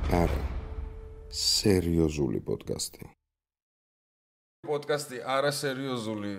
არა სერიოზული პოდკასტი. პოდკასტი არასერიოზული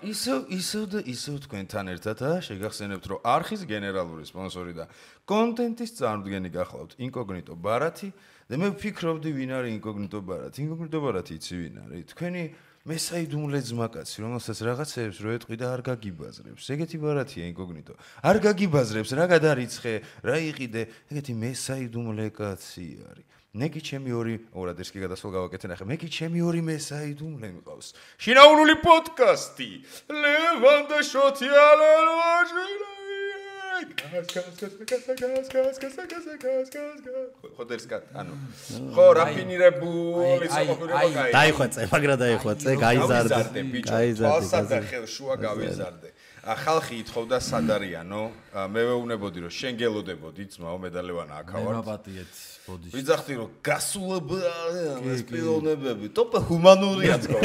ისევ თქვენთან ერთად შეგახსენებთ რომ არხის გენერალური სპონსორი და კონტენტის წარმოდგენი გახლავთ ინკოგნიტო ბარათი და მე ვფიქრობდი ვინ არის ინკოგნიტო ბარათი. ინკოგნიტო ბარათი იცი ვინ არის? თქვენი მესაიდუმლე ძმაკაცი, რომელსაც რაღაცეებს რო ეტყვი და არ გაგიბაზრებს. ეგეთი ბარათია ინკოგნიტო. არ გაგიბაზრებს, რა გადარიცხე, რა იყიდე, ეგეთი მესაიდუმლე კაცი არის. ნეკი ჩემი ორად ეს კი გადასვლა გავაკეთე ნახე. მე კი ჩემი ორი მესაიდუმლე მყავს. შინაურული პოდკასტი. ლევან და შოთიალელვაჟი. ხოდერსკა ანუ ხო რაფინირებული საყოფილება კაი დაიხვეწე მაგრა დაიხვეწე გაიზარდე თვალსა ხელ შუა გავიზარდე ხალხი ითხოვდა სად არიანო მე ვეუბნებოდი რომ შენ გელოდებოდი ძმაო მედალევანა აქავართ მე მაპატიეთ ბოდიში ვიძახდი რომ გასულება ეს პიროვნებები ტოპე ჰუმანურია თქო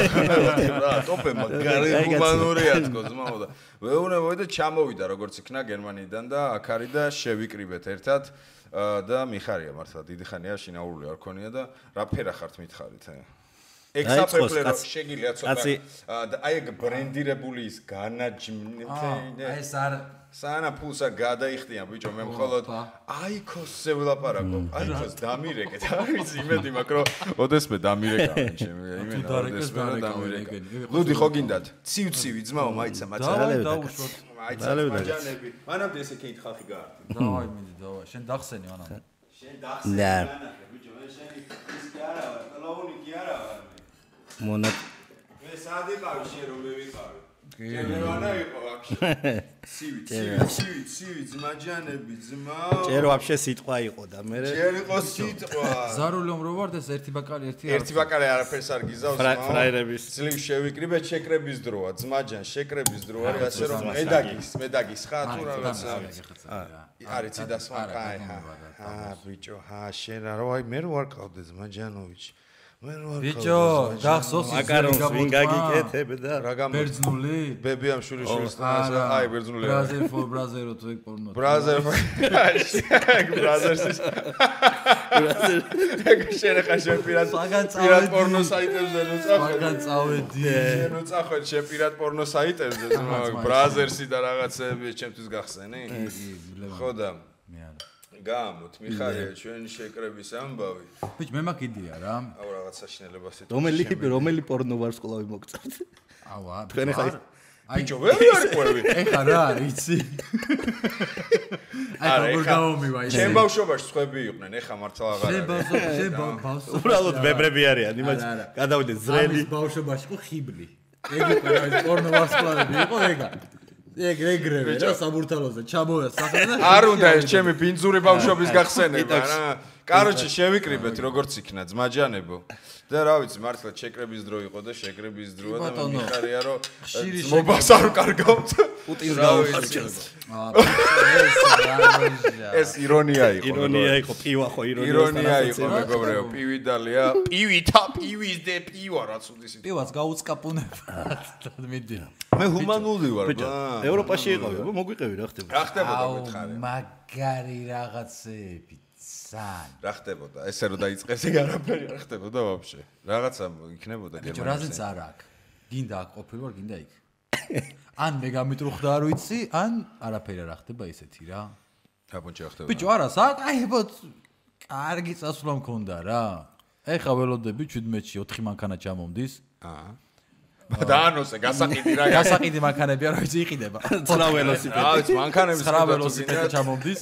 რა ტოპე მაგარი ჰუმანურია თქო ძმაო და ვეუბნებოდი და ჩამოვიდა როგორც იქნა გერმანიიდან და აქ არის და შევიკრიბეთ ერთად და მიხარია მართლა დიდი ხანია შინაურული არ ქონია და რა ფერა ხართ მითხარით ექსაფერფლე რომ შეგიძლია ცოტა აი ეგ ბრენდირებული ის განაჯმნე ეს არ სანა ფულსა გადაიხდიან ბიჭო მე მხოლოდ აიქოსზე ვლაპარაკობ აიქოს დამირეკეთ არ ვიცი იმედი მაქვს რომ ოდესმე დამირეკავენ ჩემი იმენა ოდესმე რომ დამირეკე ლუდი ხო გინდათ ცივცივი ძმაო მაიცა მაცალები დაუშვოთ მაიცა მაჯანები მანამდე ესე კით ხალხი გაარდი დავაი მინდი დავა შენ დახსენი მანამდე შენ დახსენი ბიჭო მე შენი ის კი არა ვარ კლაუნი კი არა ვარ მონად მე სად იყავი შენ რომ მე ვიყავი გენერანა იყო ვაფშე ცივი ძმაჯანები ძმაო ჯერ ვაფშე სიტყვა იყო და მე ჯერ იყო სიტყვა ზარული რომ რო ვარ და ერთი ბაკალი ერთი ბაკალი არაფერს არ გიზავს ძმაო ფრაერების ძლივ შევიკრიბეთ შეკრების დროა ძმაჯან შეკრების დრო არის ასე რომ მედაგის ხა თუ რაღაცა არის ციდასმა კაი ბიჭო შენ რა აი მე რო არ ყავდე ძმაჯანოვიჩი ბიჭო გახსოვს მაკარონს ვინ გაგიკეთებდა რა გამო ბერძნული ბებიამ შვილიშვილს აი ბერძნული ბრაზერო თუ ეგ პორნო ბრაზერს ეგ შენ ხა შენ პირად პორნო საიტებზე ნუ წავედი შენ ნუ წახვედ შენ პირად პორნო საიტებზე ბრაზერსი და რაღაცები ჩემთვის გახსენი ხო და გამოთ მიხარია ჩვენ შეკრების ამბავი ბიჭ მე მაქვს იდეა რა აუ რაღაც საშინელებას იტყვი რომელი პორნო ვარსკვლავი მოგწევთ ავა თქვენ ხა ბიჭო ვერ არიყვები ეხა რა იცი აი როგორ გამომივა ის ჩემ ბავშვობაში სხვები იყვნენ ეხა მართლა აღარ არის შენ ბავშვობაში უბრალოდ ბებრები არიან იმას გადავიდეთ ზრელი ბავშვობაში იყო ხიბლი ეგ იყო რა ის პორნო ვარსკვლავები იყო ეგრევე რა საბურთალოზე ჩამოვიდა სახე და არ უნდა ეს ჩემი ბინძური ბავშვობის გახსენება რა კაროჩე შევიკრიბეთ როგორც იქნა ძმაჯანებო და რა ვიცი მართლა შეკრების დრო იყო და შეკრების დროა და მიხარია რომ მობას არ კარგავთ პუტინს გაუხარჯეს ეს ირონია იყო პივა ხო ირონია იყო მეგობრებო პივი დალია პივის დე პივა რაც უდის პივას გაუწკაპუნება მიდი მე ჰუმანური ვარ ევროპაში იყავი მოგვიყევი რა ხდება რა ხდებოდა მითხარი მაგარი რაღაცები რა ხდებოდა ესე რომ დაიწყეს ეგ არაფერი რა ხდებოდა ვაფშე რაღაცა იქნებოდა გერმანიაში რაზეც არ აქვს გინდა აქ ყოფილვარ გინდა იქ ან მე გამიტრუხდა არ ვიცი ან არაფერი არ ხდება ისეთი რა აბონჭი რა ხდება ბიჭო არა საკაიბოთ კარგი წასვლა მქონდა რა ეხა ველოდები 17-ში 4 მანქანა ჩამომდის დაანოსე გასაყიდი რა გასაყიდი მანქანები არ ვიცი იყიდება 9 ველოსიპედი რა ვიცი მანქანების 9 ველოსიპედი ჩამომდის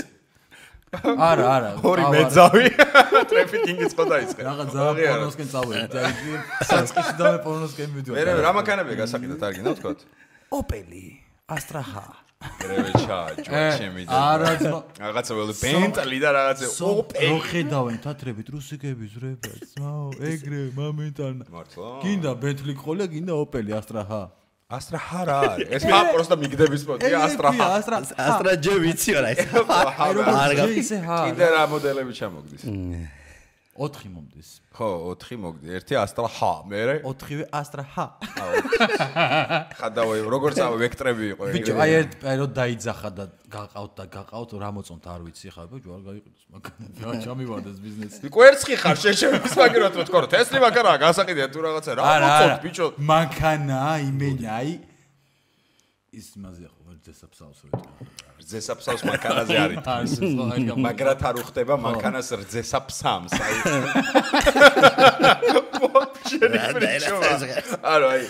არა ორი მეძავი ტრაფიკინგიც ხო დაიწყე რაღაც ზავი პორნოსკენ წავედი საწყიში და მე პორნოსკენ მივდივარ მე რა მანქანებია გასაყიდად არ გინდა ვთქვათ ოპელი ასტრაჰა რევეჩა ჩემი და რაღაცა ველო ბენტლი და რაღაცა ოპელი რო ხედავენ თათრებით რუსიკები ზრებაც ძმაო ეგრე მომენტან მართლა გინდა ბენტლი ყოლე გინდა ოპელი ასტრაჰა ასტრაჰა რა არის ეს ხა პროსტა მიგდების პოტია ასტრაჰა ასტრაჯე ვიცი რა ეს არ გაგი კიდე რა მოდელები ჩამოგდის 4 მომდის. ხო, 4 მოგდი. 1 Astra H, მერე 4-ვე Astra H. ხადავე, როგორც ვექტრები იყო. ბიჭო, აი ერთ პერიოდ დაიძახა და გაყავთ რა მოწონთ არ ვიცი ხა, ბიჭო, არ გაიყიდოს მაგანა. ჩამივარდეს ბიზნესი. კვერცხი ხარ შეშემის მაგერად რო თქო, თესლი მაგარა გასაყიდია თუ რაღაცა რა მოწონთ ბიჭო. მანქანა, იმენა, აი ის მაზია ხო, რძესაფსავს ვეთქვა. რძესაფსავს მანქანაზე არის. მაგრად არ უხდება მანქანას რძესაფსამს, აი. არა, აი.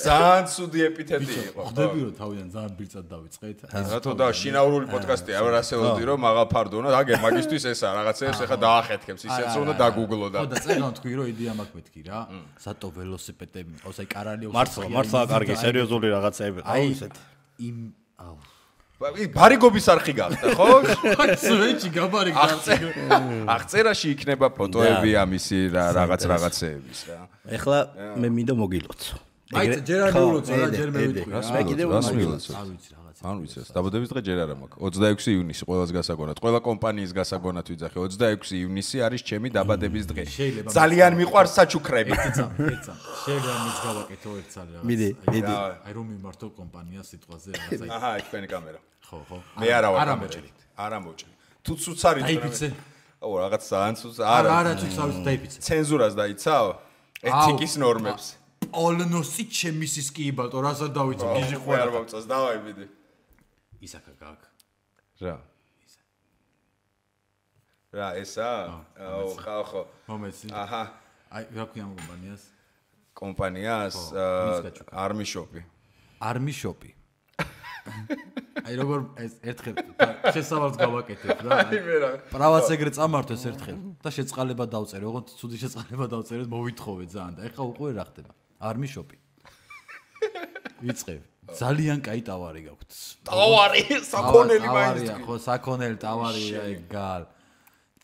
ძალიან ცუდი ეპითეტი იყო. ხდები რომ თავიდან ძალიან ბირწად დავიწყეთ. რატო და შინაურული პოდკასტია, არ ასეულდი რომ მაღალ ფარდონა, აგერ მაგისტვის ესაა, რაღაცეებს ეხა დაახეთქებს, ისეც რომ უნდა დაგუგლო და. ხო და წერან თქვი რომ იდეა მაქვს მეთქი რა. სატო ველოსიპედები მყავს, აი კარალიოს. მართლა კარგი სერიოზული რაღაცეები ყავს ესეთი. იმ აუ ბარიგობის არხი გახდა, ხო? სვეჩი გაბარი გახდა. აღწერაში იქნება ფოტოები ამისი რაღაცეების რა. ეხლა მე მინდა მოგილოცო. აი ჯერ არ მივულოცო რა, ჯერ მე ვიტყვი რა. მე კიდევ რას მივულოცო? არ ვიცი რაღაცა. არ ვიცი, დაბადების დღე ჯერ არ მაქვს. 26 ივნისი ყველას გასაგონად. ყველა კომპანიის გასაგონად ვიძახე. 26 ივნისი არის ჩემი დაბადების დღე. ძალიან მიყვარს საჩუქრები. ეცა. შეიძლება მის გავაკეთო ერთ წალი რაღაც. მიდი. აი რომ მიმართო კომპანია სიტყვაზე რაღაცა. აჰა, იქ თქვენი კამერა. ხო. მე არა ვარ გამოჭრით. არა მოჭრით. თუ ცუც არის დაიფიცე. აუ რაღაც ძალიან ცუც არა ცუც არის დაიფიცე. ცენზურას დაიცავ? ეთიკის ნორმებს. ოლნოსი ჩემი სისკი იბალტო, რას არ დავიცი, გიჟი ხო არ მომწონს, დავაი მიდი. ისაკა გაკ. რა. რა ესა? აუ ხო. მომეცი. აჰა. აი რა ქვია ამ კომპანიას? კომპანიას Army Shop-ი. Army Shop-ი. აი როგორ ეს ერთხელ შესავალს გავაკეთებ რა. აი მე რა. პრავაც ეგრე წამართოს ერთხელ და შეწყალება დავწერე, ოღონდ ცუდი შეწყალება დავწერე, მოვითხოვე ძალიან და ეხლა უკვე რა ხდება? Army Shop-ი. ვიწყებ. ძალიან კაი ტავარი გაქვთ. ტავარი, საქონელი მაინც. ხო, საქონელი ტავარი, აი გალ.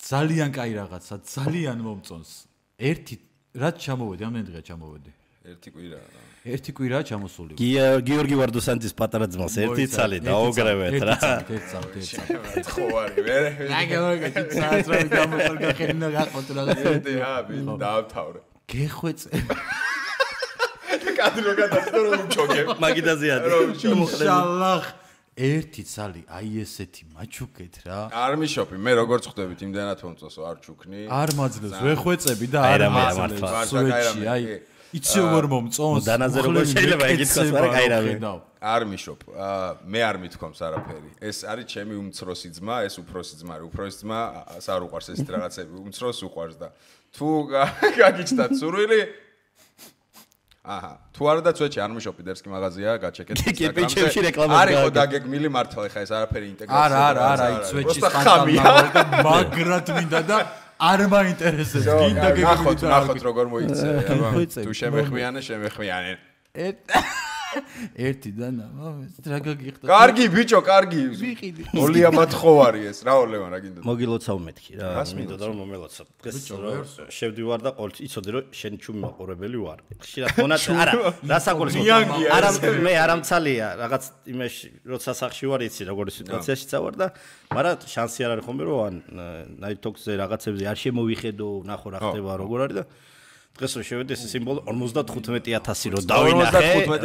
ძალიან კაი რაღაცა, ძალიან მომწონს. ერთი რაც ჩამოვედი, ამდენი დღეა ჩამოვედი. ერთი კვირა. ერთი კვირაა ჩამოსული. გიორგი ვარდოსანძის პატარა ძმას ერთი ცალი დაოგრევეთ რა. ერთ წამი. ხო არის, მე. აგა საათს რა გამოსულ გახენა გახოთ რაღაცა. აბი, დაავთავრე. გეხვეწე. კადრო გადასწრო რომ ჩოგებ. მაგიდაზე არის. ინშალლაჰ. ერთი ცალი, აი ესეთი მაჩუკეთ რა. Army Shop-ი, მე როგორც ხვდებით, იმდანაც მომწონსო, არ ჩუქნი. არ მაძლევს, ვეხვეწები და არ მაძლევს. სუეჩი, აი იცი როგორ მომწონს. დანაზე როგორ შეიძლება ეკითხოს, მაგრამ კაი რა. Army Shop. მე არ მithkoms არაფერი. ეს არის ჩემი უმცროსი ძმა, ეს უფროსი ძმა არის. უფროსი ძმა არ უყვარს ეს რაღაცები, უმცროს უყვარს და თუ გაგიჩნდათ სურვილი აჰა, თუ არა და წვეჩი Army Shop-ი დერსკი მაღაზია, გაჩეკეთ კიპიჩებში რეკლამას არის ხო დაგეგმილი მართლა ეხა ეს არაფერი ინტეგრაცია. არა, აი წვეჩის სტანდარტი მაგრად მინდა და არ მაინტერესებს. გინდა გეგმით ნახოთ როგორ მოიქცე, აბა. თუ შემეხმიანე. ერთი და ნამამეს რა გაგიხდა. კარგი ბიჭო, კარგი. ვიყიდი. ოლია მათხოვარი ეს, რა ოლევან რა გინდა. მოგილოცავ მეთქი რა. მინდოდა რომ მომელოცო. დღეს შევდივარ და ყოველთვის იცოდი რომ შენი ჩუმი მაყურებელი ვარ. ხშირად მონათ არა, რასაკურსო. არა მე არამცალია, რაღაც იმაში როცა სახში ვარ იცი როგორი სიტუაციაში წავარ და მაგრამ შანსი არ არის ხომ რომ ან ნაითოქსზე რაღაცებზე არ შემოვიხედო, ნახო რა ხდება როგორ არის და დღეს რომ შევედი ეს სიმბოლო 55000 რო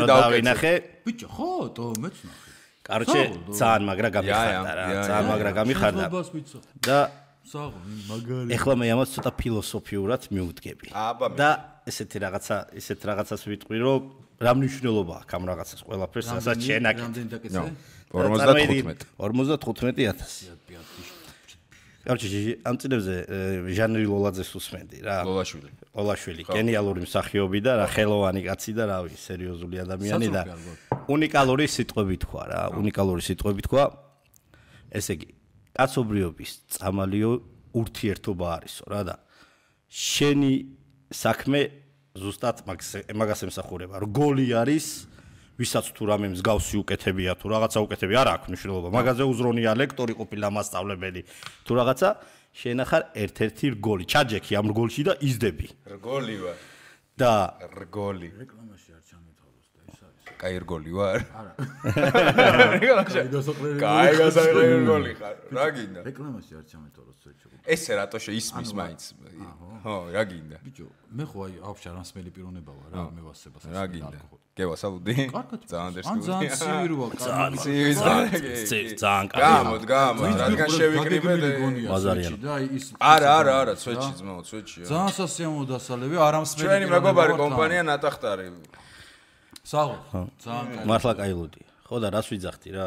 დავინახე. ბიჭო, ხო, თო მეც ნახე. კაროჩე, ძალიან მაგრა გამიხარდა რა, ძალიანագրა გამიხარდა. და საღო, მაგარი. ეხლა მე ამას ცოტა ფილოსოფიურად მივუდგები. და ესეთ რაღაცას ვიტყვი, რომ რა მნიშვნელობა აქვს ამ რაღაცას ყველაფერს, რასაც შენაკეთ. რამდენი დაკეცე? 55000. კაროჩე, ამ წინებზე ჟანრი ლოლაძეს უსმენდი რა. ლოლაშვილი, გენიალური მსახიობი და რა ხელოვანი კაცი და რავი, სერიოზული ადამიანი და უნიკალური სიტყვები თქვა რა, უნიკალური სიტყვები თქვა. ესე იგი, კაცობრიობის წამალიო ურთიერთობა არისო რა და შენი საქმე ზუსტად მაგას ემსახურება. რგოლი არის ვისაც თუ რამე მსგავსი უკეთებია თუ რაღაცა უკეთებია არ აქვს მნიშვნელობა. მაგაზე უზრონია ლექტორი ყოფილა მასწავლებელი თუ რაღაცა შენ ახარ ერთ-ერთი რგოლი. ჩაჯექი ამ რგოლში და იზდები. რგოლი ვარ. და რგოლი. რეკლამაში არ ჩამეთვალოს და ეს არის. კაი ერგოლი ვარ? არა. კაი გასაერგოლი ხარ. რა გინდა? რეკლამაში არ ჩამეთვალოს ცოტა. ესე რატო შეისმის მაინც? ხო, რა გინდა? ბიჭო, მე ხო აი ავშა რასმელი პიროვნება ვარ რა, მე ვასებას. რა გინდა? გევასალუდი? ძალიან დერსკი. ძალიან ცივი როა, ძალიან ცივი ძალიან კარგი. გამოდ, რადგან შევიკრიბე ბაზარიან. და აი ის არა, ცვეთში ძმაო, ცვეთშია. ძალიან სასიამოვნო დასალევი, არამსმელი. ჩვენი მეგობარი კომპანია ნატახტარი. საღო. ძალიან კარგი. მართლა კაილოდი. ხო და რას ვიძახდი რა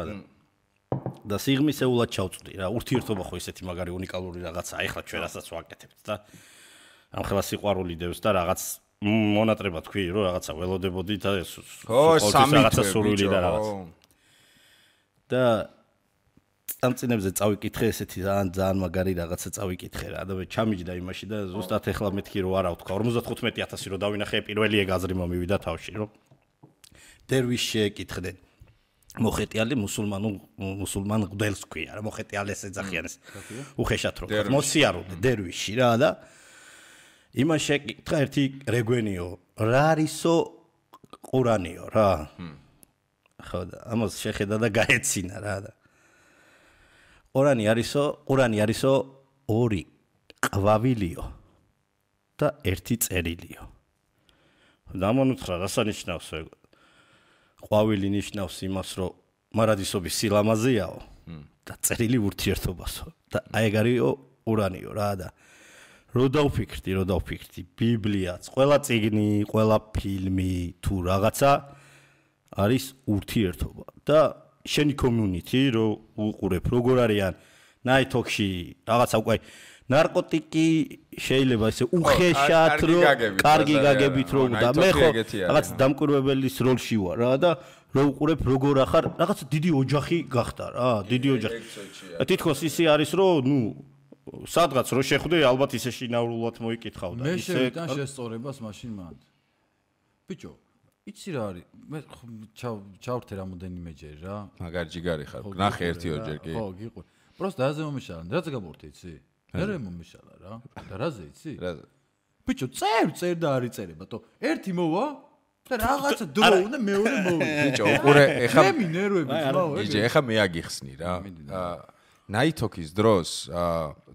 და სიღმისეულად ჩავწვდი რა. ურთიერთობა ხო ისეთი მაგარი უნიკალური რაღაცაა. ეხლა ჩვენ რასაც ვაკეთებთ და ამ ხელა სიყვარული დევს და რაღაც მონატრება თქვი რომ რაღაცა ველოდებოდი და რაღაცა სურვილი და რაღაც. და წამწინებზე წავიკითხე ესეთი ძალიან მაგარი რაღაცა წავიკითხე რა და მე ჩამიჯდა იმაში და ზუსტად ეხლა მეთქი რომ არა ვთქვა 55000 რომ დავინახე პირველი ეგაზრი მომივიდა თავში რომ დერვიშ შეეკითხდნენ მოხეტიალე მუსულმან გდელს ქვია რა მოხეტიალეს ეძახიან ეს უხეშად რო მოსიარულე დერვიში რა და იმან შეეკითხა ერთი რეგვენიო რა არისო ყურანიო რა ხო და ამას შეხედა და გაეცინა რა და ყურანი არისო ორი ყვავილიო და ერთი წერილიო და ამონუცხრა რასანიშნავს ყვავილი ნიშნავს იმას რომ მარადისობის სილამაზეაო და წერილი ურთიერთობასო და აი ეგ არისო ყურანიო რა და რო დავფიქრდი ბიბლიაც ყველა წიგნი ყველა ფილმი თუ რაღაცა არის ურთიერთობა და შენი community რო უყურებ როგორ არიან ნაითოქში რაღაცა უკვე ნარკოტიკი შეიძლება ესე უხეშად რო კარგი გაგებით რო და მე ხო რაღაც დამკვირვებელის როლში ვარ რა და რო უყურებ როგორ ახარ რაღაც დიდი ოჯახი გახდა რა დიდი ოჯახი თითქოს ისე არის რომ ნუ სადღაც რო შეხვდე ალბათ ისე შინაურულად მოიკითხავ და ისე მე შევიტან შესწორებას მაშინ მანდ ბიჭო იცი რა არის მე ჩავრთე რამოდენიმეჯერ რა მაგარ ჯიგარი ხარ ნახე ერთი ორჯერ კი ხო გიყვი პროსტ დაზე მომიშალა რაც გაბურთე იცი მე მომიშალა რა და რაზე იცი ბიჭო წერ და არ იწერება თო ერთი მოვა და რაღაცა დრო უნდა მეორე მოვიდა ბიჭო უყურე ეხა მე მინერვები ძმაო ბიჭო ეხა მე აგიხსნი რა ნაითოქის დროს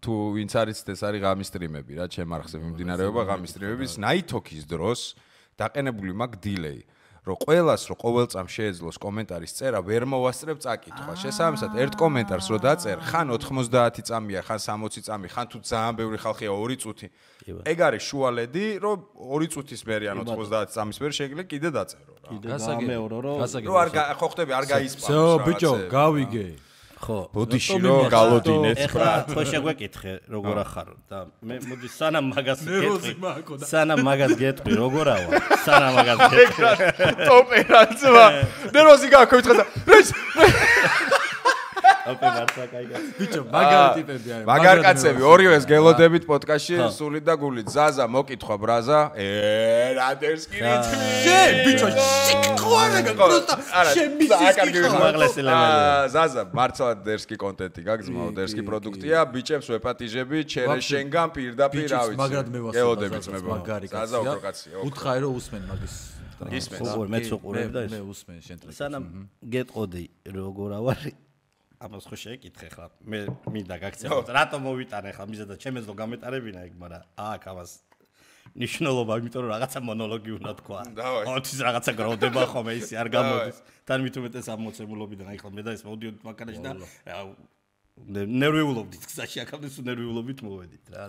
თუ ვინც არის ეს არის ღამის სტრიმები რა ჩემ არხზე მიმდინარეობა ღამის სტრიმების ნაითოქის დროს დაყენებული მაგ დილეი რომ ყოველას რო ყოველ წამს შეეძლოს კომენტარის წერა ვერ მოვასწრებ წაკითხვა შესაბამისად ერთ კომენტარს რო დაწერ ხან 90 წამია ხან 60 წამი ხან თუ ძალიან ბევრი ხალხია 2 წუთი ეგ არის შუალედი რომ 2 წუთის მერე ან 90 წამის მერე შეიძლება კიდე დაწერო რა გასაგებია რომ არ ხო ხტები არ გაისპაროს ზო ბიჭო გავიგე ხო ბოდიში რომ გალოდინეთ ეხლა ხო შეგვეკითხე როგორ ახარო და მე მოდი სანამ მაგას გეტყვი როგორაა სანამ მაგას გეტყვი ტოპერაცვა ნერვოზი გაქვეთხა და ოპერაცია кайგა ბიჭო მაგარი ტიპები არის მაგარ კაცები ორივეს გელოდებით პოდკასტში სულით და გულით ზაზა მოკითხვა ბრაზა რა დერსკი რითმი ბიჭო სიყვარული პროსტა შემიცის ზაზა მართლა დერსკი კონტენტი გაგზმაო დერსკი პროდუქტია ბიჭებს ვეპატიჟები ჩერე შენგან პირდაპირ რა ვიცი მაგრად მე ვასწავლე გელოდებით მეგონა ზაზა უფრო კაცია უთხარი რომ усმენ მაგის ისმენს მეც უყურებ და მე усმენ შენ ტრეკს სანამ გეტყოდი როგორ ავარ ამას ხო შეეკითხე ხა მე მინდა გაქცევო რატომ მოვიტანე ხა მიზედა ჩემეძლო გამეტარებინა ეგ მაგრამ აქ ამას ნიშნულობა იმიტომ რომ რაღაცა მონოლოგი უნდა თქვა ოთის რაღაცა გროვდება ხოლმე ისე არ გამოდის თან მით უმეტეს ამოცემულობიდან აი ხლა მე და ეს მოვდიოდით მანქანაში და ნერვიულობდით გზაში აქამდე სულ ნერვიულობით მოვედით რა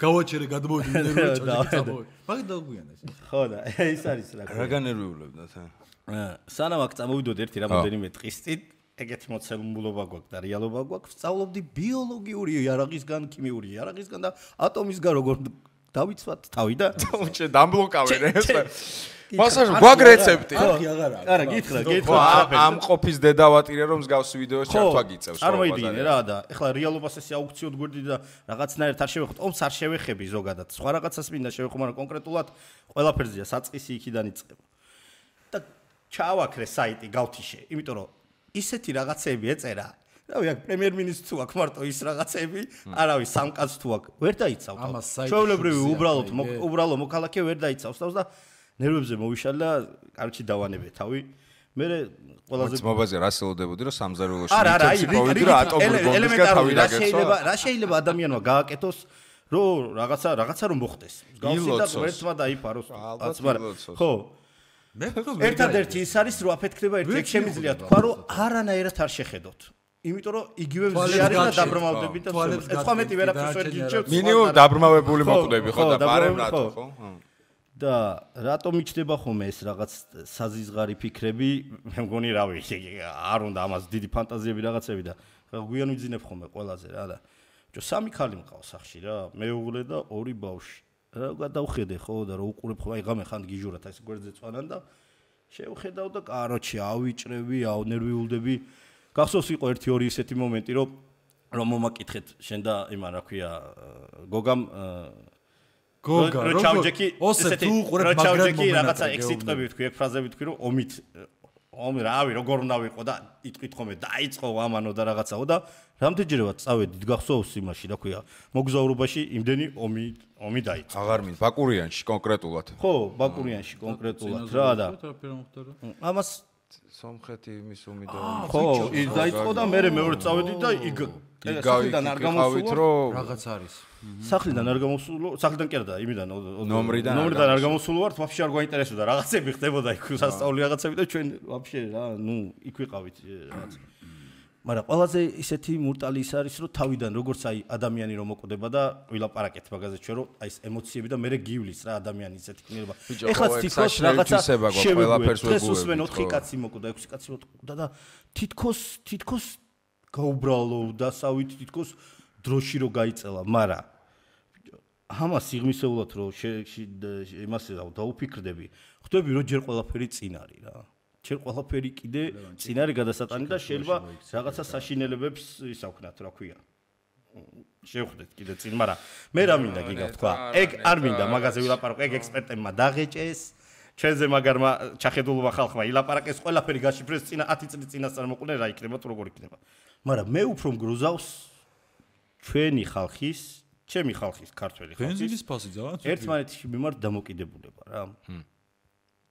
გავაჩერე გადმოვიდი ნერვიულობით მაგ დაგვიანა ხო და ეს არის რა განერვიულებდა თან სანამ აქ წამოვიდოდ ერთი რამოდენიმე დღის წინ ეგეთი მოცემულობა გვაქვს და რეალობა გვაქვს ვსწავლობდი ბიოლოგიური იარაღისგან ქიმიური იარაღისგან და ატომისგან როგორ დავიცვათ თავი და ჩე დამბლოკავენ ეს მასაჟ გვაქვს რეცეპტი არა გითხრა ამ ყოფის დედავატირე რომ მსგავსი ვიდეოს ჩართვა გიწევს არ მოიდგინე რა და ეხლა რეალობას ესე აუქციოდ გვერდი და რაღაცნაირად არ შევეხოთ ომს არ შევეხები ზოგადად სხვა რაღაცას მინდა შევეხო მაგრამ კონკრეტულად ყველაფერზეა საწყისი იქიდან იწყება და ჩავაქრე საიტი გავთიშე იმიტომ რომ ისეთი რაღაცები ეწერა რავი აქ პრემიერ-მინისტრს თუ აქ მარტო ის რაღაცები არავის სამკაც თუ აქ ვერ დაიცავთ ჩვეულებრივი უბრალო მოქალაქე ვერ დაიცავს თავს და ნერვებზე მოვიშალა და კარჩი დავანებე თავი მე ყველაზე ძმობაზე რა სელოდებოდი რომ სამზარეულოში მიწევს პოვიდი რა ატომური ბომბისგან თავი დაგეცვა რა შეიძლება ადამიანმა გააკეთოს რომ რაღაცა რომ მოხდეს გავსი და ერთმა დაიფაროს ხო მე ერთადერთი ის არის რომ აფეთქდება ერთ შემიძლია თქვა რომ არანაირად არ შეხედოთ იმიტომ რომ იგივე ზიარი და დაბრმავდები და სხვა მეტი ვერაფერს ვერ გიჩევთ მინიმუმ დაბრმავებული მოკვდები ხო და პარემნატო ხო და რატომ იჩდება ხოლმე ეს რაღაც საზიზღარი ფიქრები მე მგონი რავი არ უნდა ამას დიდი ფანტაზიები რაღაცები და გვიან ვიძინებ ხოლმე ყველაზე რა და სამი ქალი მყავს სახში რა მეუღლე და ორი ბავშვი რა გადავხედე ხო და რა უყურებ ხო აი ღამე ხან გიჟურათ ეს გვერდზე წვანან და შევხედავ და კაროჩი ავიჭრები ავნერვიულდები გახსოვს იყო 1-2 ისეთი მომენტი რომ მომაკითხეთ შენ და იმან რა ქვია გოგამ როჩავჯეკი ოსებ თუ უყურებ მაგრამ რაღაცა ექსიტყვები თქვი ეგ ფრაზები თქვი რომ ომი რავი როგორ უნდა ვიყო და იტყვით ხოლმე დაიწყო ამანო და რაღაცაო და რამდენჯერმე წავედით გახსოვს იმაში რა ქვია მოგზაურობაში იმდენი ომი დაიწყო აღარ მინდა ბაკურიანში კონკრეტულად ხო ბაკურიანში კონკრეტულად რა და ამას სომხეთი იმის ომი და ხო ის დაიწყო და მე მეორე წავედი და სახლიდან არ გამოსულა რაღაც არის სახლიდან არ გამოსულო სახლიდან კი არა და იმიდან ნომრიდან არ გამოსულო ვართ ვაფშე არ გვაინტერესებდა რაღაცები ხდებოდა იქ სასწაული რაღაცები და ჩვენ ვაფშე რა ნუ იქ ვიყავით რაღაც მაგრამ ყველაზე ისეთი მურტალი ის არის რომ თავიდან როგორც აი ადამიანი რომ მოკვდება და ვილაპარაკეთ მაგაზე ჩვენ რომ აი ეს ემოციები და მე გივლის რა ადამიანი ისეთი ქნილობა ეხლა თითქოს რაღაცა ყველაფერს ვეგუებთ 4 კაცი მოკვდა 6 კაცი მოკვდა და თითქოს გაუბრალო და სავით თითქოს დროში რო გაიწელა მაგრამ ამას სიღმისეულად რომ იმას დაუფიქრდები ხვდები რომ ჯერ ყველაფერი წინ არის რა ჯერ ყველაფერი კიდე წინ არის გადასატანი და შეიძლება რაღაცა საშინელებებს ისავქნათ რა ქვია შევხვდეთ კიდე წინ მაგრამ მე რა მინდა გიგა თქვა ეგ არ მინდა მაგაზე ვილაპარაკო ეგ ექსპერტებმა დაღეჭეს ჩვენზე მაგარმა ჩახედულობა ხალხმა ილაპარაკეს ყველაფერი გაშიფრეს წინა 10 წლის წინასწარ მოყვნენ რა იქნება თუ როგორ იქნება მაგრამ მე უფრო მგრუზავს ჩვენი ხალხის ჩემი ხალხის ქართველი ხალხის ბენზინის ფასი ძალიან ერთმანეთის მიმართ დამოკიდებულება რა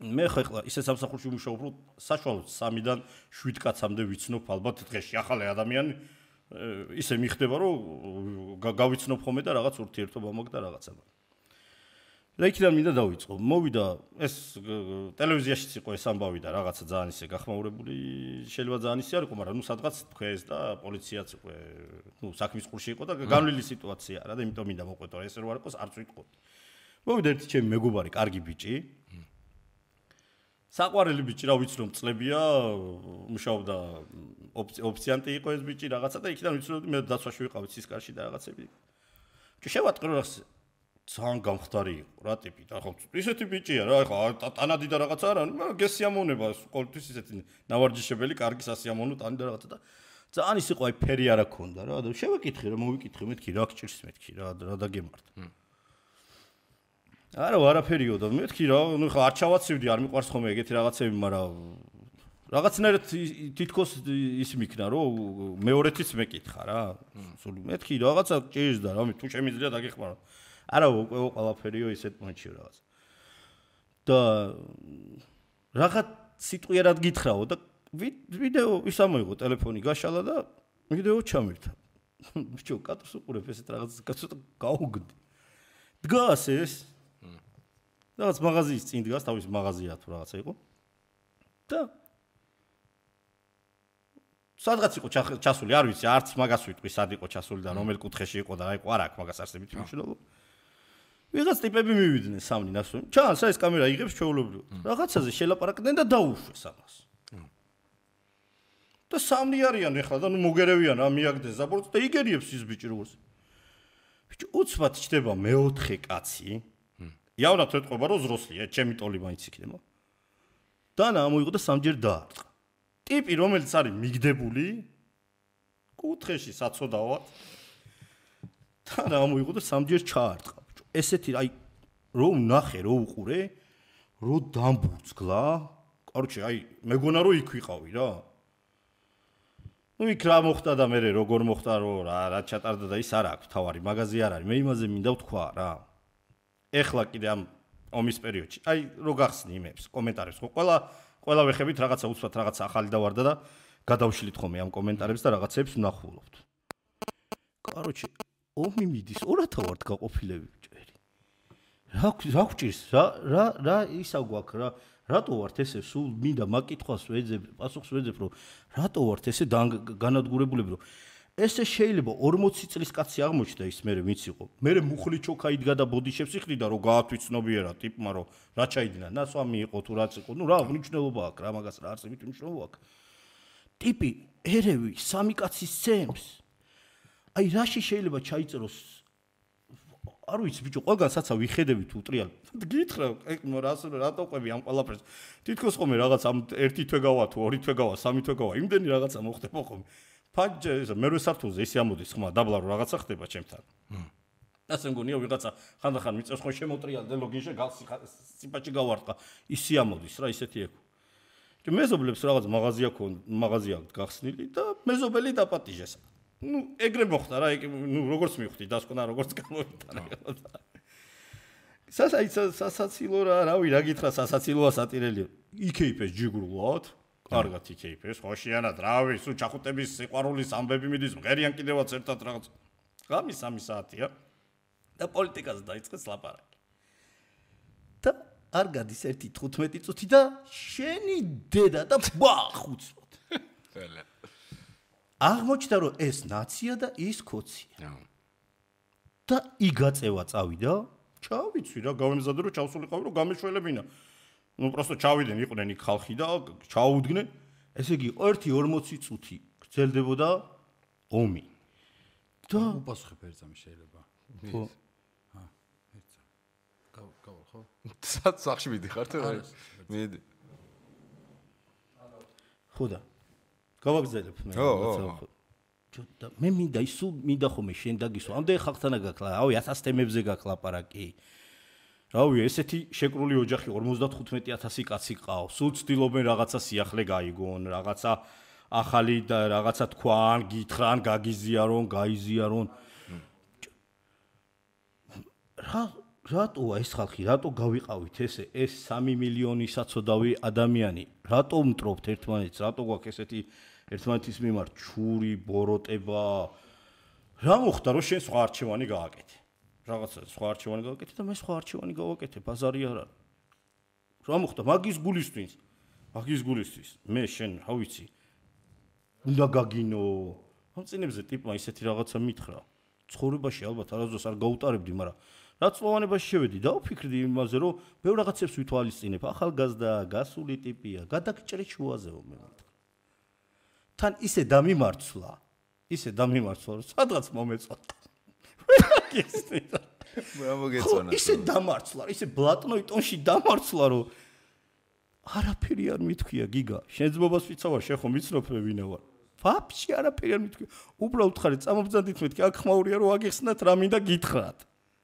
მე ხლა ისე სამსახურში ვიმუშაობ რომ საშუალოდ 3-დან 7 კაცამდე ვიცნობ ალბათ დღეში ახალი ადამიანი ისე მიხდება რომ გავიცნობ ხოლმე და რაღაც ურთიერთობა მოგდა რაღაცა და იქიდან მინდა დავიწყო მოვიდა ეს ტელევიზიაშიც იყო ეს ამბავი და რაღაცა ძალიან ისე გახმაურებული შეიძლება ძალიან ისე არ იყო მაგრამ ნუ სადღაც თქვეს და პოლიციაც იყო ნუ საქმის ყურში იყო და განვლილი სიტუაცია რა და იმიტომ მინდა მოყვეტო ეს რო არ იყოს არც ვიტყო მოვიდა ერთი ჩემი მეგობარი კარგი ბიჭი საყვარელი ბიჭი რა ვიცნობ წლებია მუშაობდა ოფიციანტი იყო ეს ბიჭი რაღაცა და იქიდან ვიცნობდი მე დაცვაში ვიყავით სისკარში და რაღაცები შევატყრო რა ძალიან გამხდარი იყო რა ტიპი და ხო ისეთი ბიჭია რა ხო ტანადი და რაღაცა არა მაგრამ გესიამოვნება ყოველთვის ისეთი ნავარჯიშებელი კარგი სასიამოვნო ტანი და რაღაცა და ძალიან ის იყო აი ფერი არა ქონდა რა და შევეკითხე რა მოვიკითხე მეთქი რა გჭირს მეთქი რა დაგემართ არა არაფერიო და მეთქი რა ნუ ხა არ ჩავაცივდი არ მიყვარს ხოლმე ეგეთი რაღაცები მაგრამ რაღაცნაირად თითქოს ის მიქნა რომ მეორეთიც მეკითხა რა სულ მეთქი რაღაცა ჭირს და რა თუ შემიძლია დაგეხმარო არა უკვე ყველაფერიო ისეთ მომენტში რაღაც და რაღაც სიტყვიერად გითხრაო და ვიდეო ის ამოიღო ტელეფონი გაშალა და ვიდეო ჩამირთა ბიჭო კატოს უყურებ ესეთ რაღაც კაცო გაუგდი დგას ეს რაღაც მაღაზიის წინ დგას თავის მაღაზია თუ რაღაცა იყო და სადღაც იყო ჩასული არ ვიცი არც მაგას ვიტყვი სად იყო ჩასული და რომელ კუთხეში იყო და აიყო არ აქვს მაგას არსებით მნიშვნელობა ვიღაც ტიპები მივიდნენ სამნი ნასვენ ჩანს ეს კამერა იღებს ჩვეულებრივად რაღაცაზე შელაპარაკდნენ და დაუშვეს ამას და სამნი არიან ეხლა და ნუ მოგერევიან რა მიაგდეს ზაბორც და იგერიებს ის ბიჭი როგორც ბიჭი უცბად ჩდება მეოთხე კაცი იავნად ეთყობა რომ ზროსლია ჩემი ტოლი მაინც იქნება და ამოიღო და სამჯერ დაარტყა ტიპი რომელიც არის მიგდებული კუთხეში საწოდავად და ამოიღო და სამჯერ ჩაარტყა ესეთი აი რომ ნახე რომ უყურე რომ დამბურძგლა კაროჩე აი მეგონა რომ იქ ვიყავი რა ნუ იქ რა მოხდა და მე როგორ მოხდა რომ რა ჩატარდა და ის არ აქვს თავარი მაღაზი არ არის მე იმაზე მინდა ვთქვა რა ეხლა კიდე ამ ომის პერიოდში აი რო გახსნი იმებს კომენტარებს ხო ყველა ყველა ვეხებით რაღაცა უცბად რაღაცა ახალი დავარდა და გადავშლით ხოლმე ამ კომენტარებს და რაღაცებს ვნახულობთ. Короче, ომი მიდის 2000 ვართ გაყოფილები ბჭერი. რა გვჭირს? რა ისა გვაქვს რა? რატო ვართ ესე სულ მინდა მაგკითხვას ვეძებ, პასუხს ვეძებ, რომ რატო ვართ ესე განადგურებულები, რომ ესე შეიძლება 40 წლის კაცი აღმოჩნდა ის მერე ვინც იყო. მერე მუხლი ჩოქა იდგა და ბოდიშებს იყრიდა, რომ გაათვიცნობიერა ტიპმა, რომ რა ჩაიდინა, ნასვამი იყო თუ რაც იყო. ნუ რა მნიშვნელობა აქვს, რა მაგას რა არსებით მნიშვნელობა აქვს. ტიპი ერევი სამი კაცის ცემს. აი რაში შეიძლება ჩაიწეროს არ ვიცი ბიჭო, ყველგან საცა ვიხედები თუ ტრიალ. გითხრა, რატო ყვები ამ ყველაფერს? თითქოს ხომ რაღაც ამ ერთი თვე გავა თუ ორი თვე გავა, სამი თვე გავა, იმდენი რაღაცა მოხდება ხომ. ფაჯე ეს მერვე სართულზე ისე ამოდის ხმა, დაბლა რომ რაღაცა ხდება ჩემთან. ასე მგონია ვიღაცა ხანდახან მიწევს ხო შემოტრიალდე ლოგინში სიფაჭი გავარტყა, ისე ამოდის რა ისეთი ეკო. მეზობლებს რაღაც მაღაზია გახსნილი და მეზობელი დაპატიჟეს. ნუ ეგრე მოხდა რა, ნუ როგორც მივხვდი, დასკვნა როგორც გამოვიტანა. სასაცილო რავი, რა გითხრა სასაცილოა სატირელი. იქეიფეს ჯიგრულად, კარგად იქეიფეს, ხოშიანად, რავი, სულ ჩახუტების სიყვარულის ამბები მიდის, მღერიან კიდევაც ერთად რაღაც. ღამის 3 საათია და პოლიტიკაზე დაიწყეს ლაპარაკი. და არ გადის 1:15 წუთი და შენი დედა და ბახუცოთ. აღმოჩნდა რომ ეს ნაცია და ის ქოცია. და იგაწევა წავიდა, ჩავიცი რა, გავემზადე რომ ჩავსულიყავი რომ გამეშველებინა. ნუ პროსტო ჩავიდნენ, იყვნენ იქ ხალხი და ჩაუდგნენ. ესე იგი 1:40 წუთი გრძელდებოდა ომი. და უპასუხებ ერთზამი შეიძლება. ხო. ერთზამი. გავალ ხო? სახში მიდიხარ თუ? მიდი. ხოდა გავაგზავნებ მე. და მე მინდა ისუ მინდა ხომე შენ დაგისვა. ამდენ ხალხთანა გაკლა, რავი 1000 თემებზე გაკლაპარაკი. რავი ესეთი შეკრული ოჯახი 55000 კაცი ყავს. სულ ცდილობენ რაღაცა სიახლე გაიგონ, რაღაცა ახალი და რაღაცა თქვან, გითხრან, გაგიზიარონ, გაიზიარონ. რატოა ეს ხალხი, რატო გავიყავით ესე ეს 3 მილიონი საცოდავი ადამიანი? რატო მტრობთ ერთმანეთს? რატო გვაქვს ესეთი ერთმანეთის მიმართ ჩური, ბოროტება? რა მოხდა რომ შენ სხვა არჩევანი გააკეთე? რაღაცა სხვა არჩევანი გააკეთე და მე სხვა არჩევანი გავაკეთე, ბაზარი არ არის. რა მოხდა? მაგის გულისთვის. მე შენ, რა ვიცი, უნდა გაგინო. ამ წინებზე ტიპმა ისეთი რაღაცა მითხრა. ცხოვრებაში ალბათ არასდროს არ გაუტარებდი, მაგრამ რაც წლოვანებაში შევედი და ვფიქრდი იმაზე, რომ ბევრ რაღაცებს ვითვალისწინებ, ახალგაზრდა, გასული ტიპია, გადაგჭრე შუაზეო მე მითხრა. თან ისე დამიმარცვლა, რომ სადღაც მომეწონა. ისე დამარცვლა, ისე ბლატნოი ტონში დამარცვლა, რომ არაფერი არ მithქვია გიგა. შენ ძმობას ვიცავარ, შენ ხომ მიცნობ ვინა ვარ. ვაფშე არაფერი არ მithქვია. უბრალოდ ხარ წამობძანდით მეთქი, აქ ხმაურია რომ აგიხსნათ რა მინდა გითხრათ.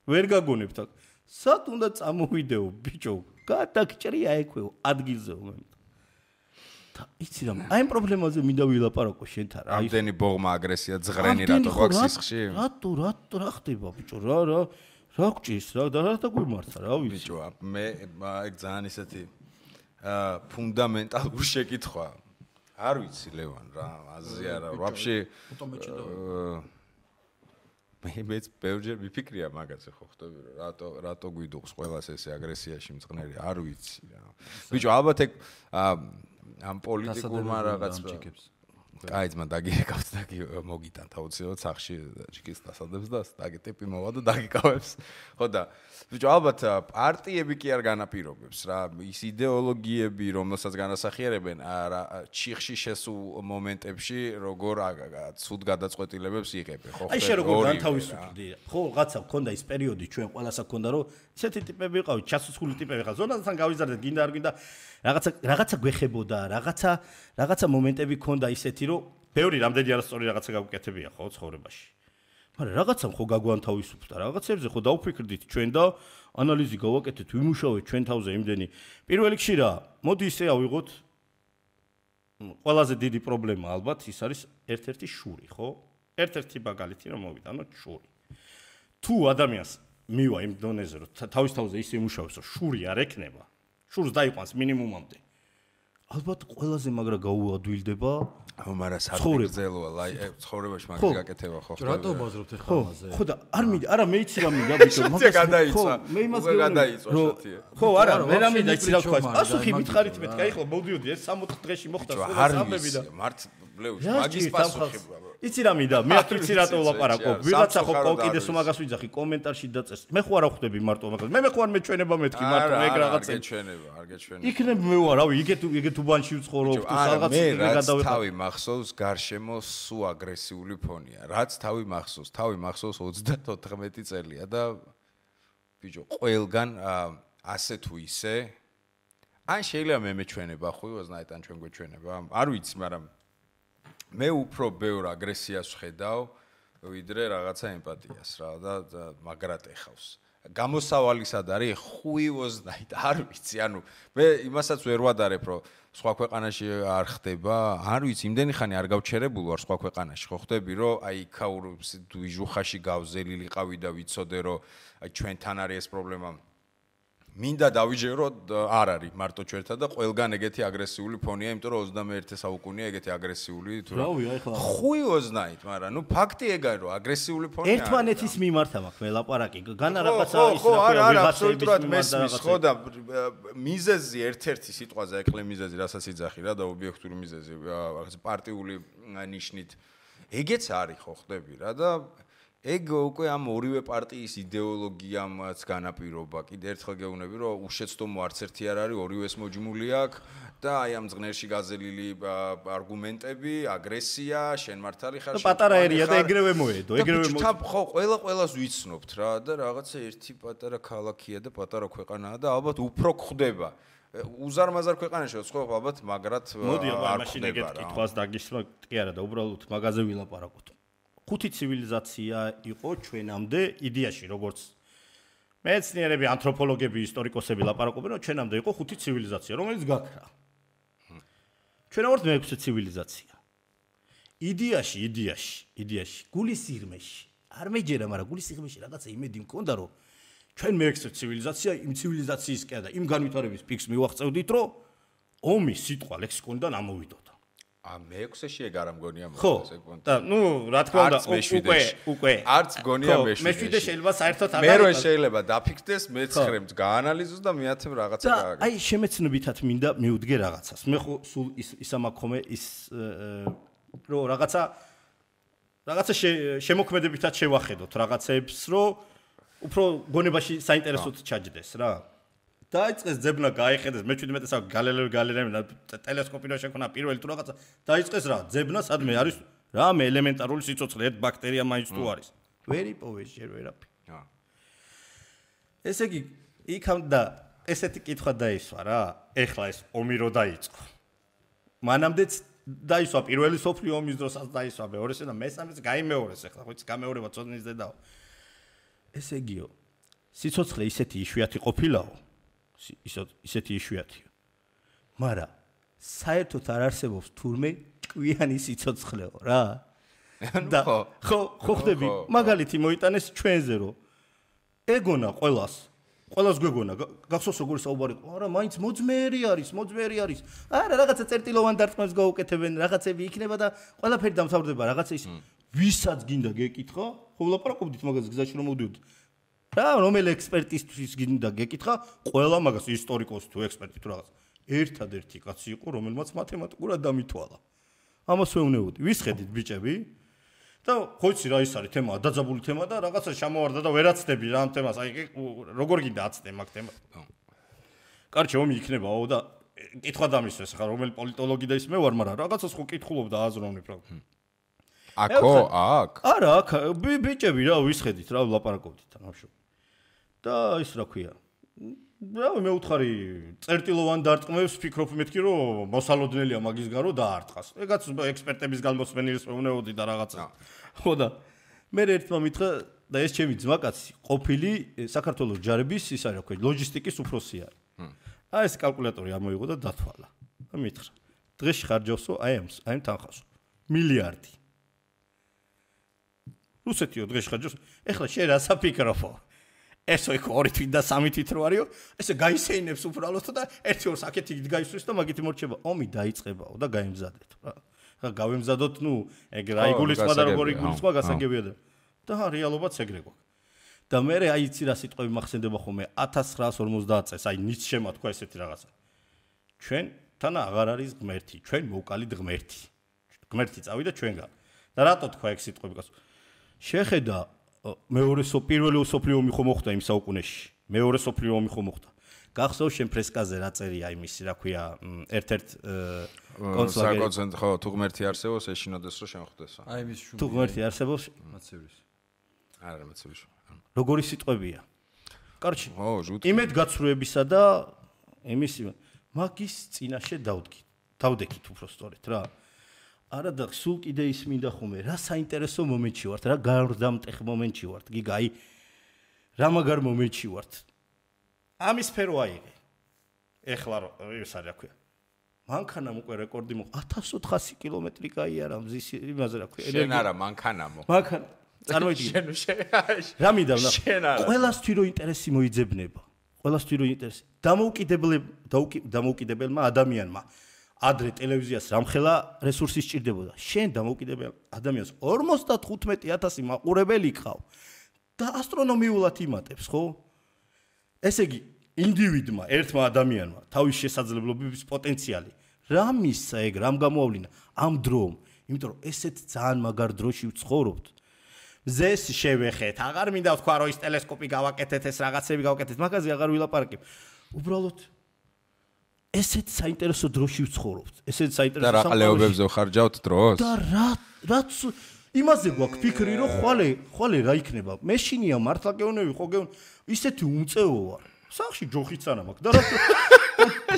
ვერ გაგონებთ აქ. სად უნდა წამოვიდეო, ბიჭო? გადაგჭრია ექვეო, ადგილზეო მე. და იცი რა, აი ამ პრობლემაზე მინდა ვილაპარაკო შენთან. ამდენი ბოღმა აგრესია ძღრენი რატო გვაქვს სისხლში? რატო რა ხდება ბიჭო? რა გჭირს რა და რა დაგვიმართა რა ვიცი. ბიჭო, მე ეგ ძალიან ისეთი ფუნდამენტალური შეკითხვა. არ ვიცი ლევან რა, აზრი არა, ვაფშე მეც ბევრჯერ მიფიქრია მაგაზე ხო ხტები რომ რატო გვიდუღს ყველას ესე აგრესიაში მწყნერი, არ ვიცი რა. ბიჭო, ალბათ ეგ ამ პოლიტიკურმა რაღაც კაი ძმა დაგიეკავთ და მოგიტანთ აუცილებლად სახში ჩიკის დასადებს და დაგე ტიპი მოვა და დაგიკავებს. ხო და ბიჭო, ალბათ პარტიები კი არ განაპირობებს რა, ის იდეოლოგიები, რომელსაც განასახიერებენ ჩიხში შესულ მომენტებში, როგორ ცუდ გადაწყვეტილებებს იღებენ, ხო? აი შე როგორ განთავისუფლდი? ხო, რაღაცა მქონდა ის პერიოდი ჩვენ ყველასა მქონდა, რომ ესეთი ტიპები იყავით, ჩასუსხული ტიპები ხარ. ზონასთან გავიზარდეთ, გინდა არ გინდა რაღაცა გვეხებოდა, რაღაცა მომენტები მქონდა ისეთი, რომ ბევრი რამდენი არასწორი რაღაცა გავუკეთებია ხო ცხოვრებაში. მაგრამ რაღაცამ ხო გაგვანთავისუფლდა, რაღაცებზე ხო დავფიქრდით ჩვენ და ანალიზი გავაკეთეთ, ვიმუშავეთ ჩვენ თავზე იმდენი. პირველ რიგში რა, მოდი ისე ავიღოთ ყველაზე დიდი პრობლემა ალბათ ის არის ერთ-ერთი შური, ხო? ერთ-ერთი მაგალითი რომ მოვიტანოთ შური. თუ ადამიანს მივა იმ დონეზე რომ თავის თავზე ისე იმუშავებს, რომ შური არ ექნება, შურს დაიყვანს მინიმუმამდე. ალბათ ყველაზე მაგრა გაუადვილდება მაგრამ საფრთხეა ცხოვრებაში მაგის გაკეთება ხო რატო ბაზრობთ ახლა ამაზე ხო და არ მინდა არა მე იცი რა მინდა ბიჭო მაგას გადაიწვა მე იმას გადაიწვა შოთია ხო არა მე რა მინდა იცი რა თქვა პასუხი მითხარით მე კაი ხო მოდიოდი ეს 60 დღეში მოხდა სხვა სამები და მართ ბლეუში მაგის პასუხი იცი რა მინდა მე აფიცი რატო ვლაპარაკობ ვიღაცა ხო კიდეს მაგას ვიძახი კომენტარში დაწეს მე ხო არა ხვდები მარტო მაგას მე ხო არ მეჩვენება მეთქი მარტო ეგ რაღაცა არ გეჩვენება იქნებ მე ვარ რავი იგეთ უბანში ვცხოვრობ თუ რაღაც მე თავი მახსოვს გარშემო სუ აგრესიული ფონია რაც თავი მახსოვს 34 წელია და ბიჭო ყველგან ასე თუ ისე ან შეიძლება მე მეჩვენება ხო ვაზნაით ან ჩვენ გვეჩვენება არ ვიცი მაგრამ მე უფრო ბევრ აგრესიას ვხედავ ვიდრე რაღაცა ემპათიას რა და მაგრად ეხავს გამოსავალი სად არის ხუივოზნაით არ ვიცი ანუ მე იმასაც ვერ ვადარებ რომ სხვა ქვეყანაში არ ხდება არ ვიცი იმდენი ხანი არ გავჩერებულ ვარ სხვა ქვეყანაში ხო ხდები რომ აი იქაურ ვიჟუხაში გავზელილი ყავი და ვიცოდე რომ აი ჩვენთან არის ეს პრობლემა მინდა დავიჯერო არ არის მარტო ჩვენთან და ყველგან ეგეთი აგრესიული ფონია იმიტომ რომ 21 საუკუნეა ეგეთი აგრესიული თუ რავი აი ხლა ხუიოზნაით მაგრამ ნუ ფაქტი ეგაა რომ აგრესიული ფონია ერთმანეთის მიმართ მაქვს მე ლაპარაკი განა რაღაცა ის ხო არა აბსოლუტურად მესმის ხო და მიზეზი ერთ-ერთი სიტყვაზე ეკლე მიზეზი რასაც იძახი რა და ობიექტური მიზეზი რაღაც პარტიული ნიშნით ეგეც არის ხო ხდები რა და ეგ უკვე ამ ორივე პარტიის იდეოლოგიამაც განაპირობა. კიდე ერთხელ გეუბნები, რომ უშეცდომო არც ერთი არ არის, ორივეს მოჯმული აქვს და აი ამ ზღნერში გაზელილი არგუმენტები, აგრესია, შენ მართალი ხარ. პატარა ერია და ეგრევე მოედო, ეგრევე მოედო. ხო, ყველას ვიცნობთ რა და რაღაცა ერთი პატარა ქალაქია და პატარა ქვეყანაა და ალბათ უფრო გვხდება. უზარმაზარ ქვეყანაში ხო ალბათ მაგრად მოდი აბა მაშინ ეგეთ კითხვას დაგისვა კი არა და უბრალოდ მაგაზე ვილაპარაკოთ. ხუთი ცივილიზაცია იყო ჩვენამდე იდეაში როგორც მეცნიერები, ანთროპოლოგები, ისტორიკოსები ლაპარაკობენ, რომ ჩვენამდე იყო ხუთი ცივილიზაცია, რომელიც გაქრა. ჩვენ ვართ მეექვსე ცივილიზაცია. იდეაში, გულის სიღრმეში. არ მეჯერა, მაგრამ გულის სიღრმეში რაღაცა იმედი მქონდა, რომ ჩვენ მეექვსე ცივილიზაცია, იმ ცივილიზაციისკენ და იმ განვითარების პიკს მივაღწევდით, რომ ომი სიტყვა ლექსიკონიდან ამოვიდოდა. მეექვსეში ეგ არ მგონია მოხდეს ეგ პონტი. და ნუ რა თქმა უნდა უკვე არც მგონია მეშვიდე. მეშვიდე შეიძლება საერთოდ არ არის. მე რო შეიძლება დაფიქრდეს, მე-9-ს გაანალიზოს და მე-10 რაღაცა გააგებს. აი შემეცნობითად მინდა მივდგე რაღაცას. მე ხო სულ ისამაქომე ის რო რაღაცა შემოქმედებითად შევახედოთ რაღაცებს, რომ უფრო გონებაში საინტერესოდ ჩაჯდეს რა. დაიწყეს ძებნა გაიხედეს მე-17 საუკუნეში გალილეო ტელესკოპი რო შექმნა პირველი თუ რაღაცა დაიწყეს რა ძებნა სადმე არის რამე ელემენტარული სიცოცხლე ერთ ბაქტერია მაინც თუ არის ვერ იპოვეს ჯერ ვერაფერი ესე იგი იქამ და ესეთი კითხვა დაისვა რა ეხლა ეს ომი რო დაიწყო მანამდეც დაისვა პირველი სოფლიო ომის დროსაც დაისვა მეორესე და მესამეც გაიმეორეს ეხლა ხო ის გამეორება წოდნის დედაო ესე იგიო სიცოცხლე ისეთი იშვიათი ყოფილაო ისეთი იშვიათია. მაგრამ საერთოდ არ არსებობს თურმე კვიანი სიცოცხლეო რა. და ხო ხდები მაგალითი მოიტანეს ჩვენზე რომ ეგონა ყველას გვეგონა გახსოვს როგორი საუბარი იყო არა მაინც მოძმეერი არის არა რაღაცა წერტილოვან დარტყმებს გაუკეთებენ რაღაცები იქნება და ყველაფერი დამთავრდება რაღაცა ის ვისაც გინდა გეკითხა ხო ვლაპარაკობდით მაგაზე გზაში რომ მოვდიოდით რა რომელი ექსპერტისთვის გინდა გეკითხა ყველა მაგას ისტორიკოსი თუ ექსპერტი თუ რაღაც ერთადერთი კაცი იყო რომელმაც მათემატიკურად დამითვალა ამას ვეუბნებოდი ვისხედით ბიჭები და ხო იცი რა ის არის თემა დაძაბული თემა და რაღაცა შემოვარდა და ვერაცდები რა ამ თემას აი როგორ გინდა აცდე მაგ თემას კარჩე ომი იქნებაო და კითხვა დამისვეს ხა რომელი პოლიტოლოგი და ის მე ვარ მაგრამ რაღაცას ხო კითხულობ და აზროვნებ რა აქ არა აქ ბიჭები რა ვისხედით რა ვლაპარაკობდით ამშო და ის რა ქვია რა მე უთხარი წერტილოვან დარტყმებს ფიქრობ მეთქი რომ მოსალოდნელია მაგის გარო დაარტყას ეგაც ექსპერტების გამოსმენილის მეუბნებოდი და რაღაცა ხო და მე ერთმა მითხრა და ეს ჩემი ძმაკაცი ყოფილი საქართველოს ჯარების ის არის რა ქვია ლოჯისტიკის უფროსი არის აი ეს კალკულატორი ამოიღო და დათვალა და მითხრა დღეში ხარჯავსო აი ამ თანხასო მილიარდი რუსეთიო დღეში ხარჯავს ეხლა შენ რა საფიქრობო ესო იქ 2 თვით და 3 თვით რო არისო, ესე გაისეინებს უბრალოდ და 1-2 აქეთ იქ გაისვრის და მაგით მორჩება. ომი დაიწყებაო და გაიმზადეთ რა. ხა გავემზადოთ, ეგ რა იგულისხმა და როგორ იგულისხმა გასაგებია და რეალობაც ეგრე გვაქვს. და მე აი იცი რა სიტყვები მახსენდება ხოლმე 1950 წელს, აი ნიცშემ თქვა ესეთი რაღაცა. ჩვენ თან აღარ არის ღმერთი, ჩვენ მოვკალით ღმერთი. ღმერთი წავიდა ჩვენგან. და რატო თქვა ეგ სიტყვები გასულ? შეხედა პირველი სოფლიო ომი ხო მოხდა იმ საუკუნეში. მეორე სოფლიო ომი ხო მოხდა. გახსოვს შენ ფრესკაზე რა წერია იმისი, რა ქვია, ერთ-ერთ კონცლაგერი. საკონცენტრატო ხო, თუ ღმერთი არსებობს, ეშინოდეს რომ შემოხდესო. აი მის შუმი. თუ ღმერთი არსებობს, მაცივრის. არა, მაცივრის. როგორი სიტყვებია? კარჩი. ო, ჟუტ. იმედ გაცრუებისა და იმისი მაგის წინაშე დავდექით უფრო სწორედ რა. არა და სულ კიდე ის მინდა ხომე, რა საინტერესო მომენტში ვართ, რა გარდამტეხ მომენტში ვართ. გიგა, აი რა მაგარ მომენტში ვართ. ამის სფერო აიღე. ეხლა ეს არის რა ქვია. მანქანამ უკვე რეკორდი მოყვა 1400 კილომეტრი გაიარა მზის იმაზე რა ქვია. შენ არა მანქანამო. მანქანა წარმოიდგინე. რა მინდა ვნახო. ყველასთვის რო ინტერესი მოიძებნება. ყველასთვის რო ინტერესი. დამოუკიდებელმა ადამიანმა ადრე ტელევიზიას რამხელა რესურსი სჭირდებოდა. შენ დამოუკიდებელ ადამიანს 55000 მაყურებელი ყავ და ასტრონომიულად იმატებს, ხო? ესე იგი, ინდივიდმა, ერთმა ადამიანმა თავის შესაძლებლობების პოტენციალი რა მისცა ეგ, რამ გამოავლინა ამ დრომ, იმიტომ რომ ესეთ ძალიან მაგარ დროში ვცხოვრობთ. მზეს შევეხეთ, აღარ მინდა ვთქვა რომ ის ტელესკოპი გავაკეთეთ, ეს რაღაცები გავაკეთეთ, მაგაზე აღარ ვილაპარაკებ. უბრალოდ ესეთ საინტერესო დროში ვცხოვრობთ. ესეთ საინტერესო და რა ყლეობებზე ვხარჯავთ დროს? და რაც იმაზე გვაქვს ფიქრი, რომ ხვალე რა იქნება? მეშინია მართლა გეუნები, ხო გეუნ ისეთი უმწეო ვარ. სახში ჯოხიც არა მაქვს. და რა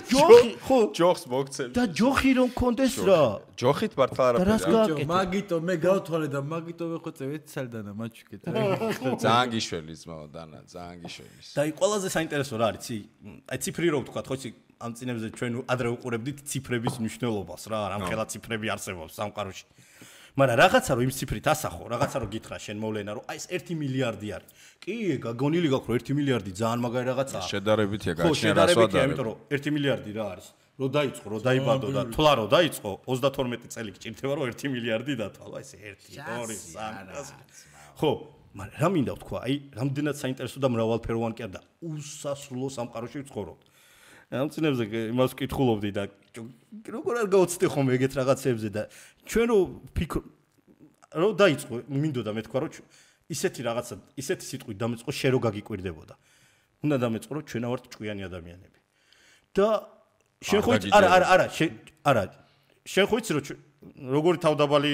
ჯოხი, ხო, ჯოხს მოგცემ. და ჯოხი რომ კონდეს რა. ჯოხით მართლა არაფერი. მაგიტო მე გავთვალე და მაგიტო ვეხვეწე ეცალდანა მაჩუკეთ. ძალიან გიშველი ძმაო დანა, ძალიან გიშველი. და აი ყველაზე საინტერესო რა არის, აი ციფრი რო ვთქვა, ხო იცი ამ წინებზე ჩვენ ადრე უყურებდით ციფრების მნიშვნელობას რა, რამხელა ციფრები არსებობს სამყაროში. მაგრამ რაღაცა რომ იმ ციფრით ასახო, რაღაცა რომ გითხრა შენ მოვლენა რომ აი ეს 1 მილიარდი არის. კი, გაგონილი გაქვს რომ 1 მილიარდი ძალიან მაგარი რაღაცაა. შედარებითია გაჩნია რასვადარი. შედარებითია, იმიტომ რომ 1 მილიარდი რა არის? რო დაიწყო, რო დაიბადო და თვლა რო დაიწყო, 32 წელი გჭირდება რომ 1 მილიარდი დათვალო, ეს 1, 2, 3. ხო, მაგრამ რა მინდა ვთქვა, აი, რამდენად საინტერესო და მრავალფეროვანი კი არა და უსასრულო სამყაროში ვცხოვრობთ. ამ წინებზე იმას ვკითხულობდი და როგორ არ გავაცდე ხომ ეგეთ რაღაცებზე და ჩვენ რო დაიწყო, მინდოდა მე თქვა რომ ისეთი რაღაცა, ისეთი სიტყვით დამეწყო შენ რო გაგიკვირდებოდა. უნდა დამეწყო რომ ჩვენ ვართ ჭკვიანი ადამიანები. და შენ ხო არა, შენ ხო იცი რომ როგორი თავდაბალი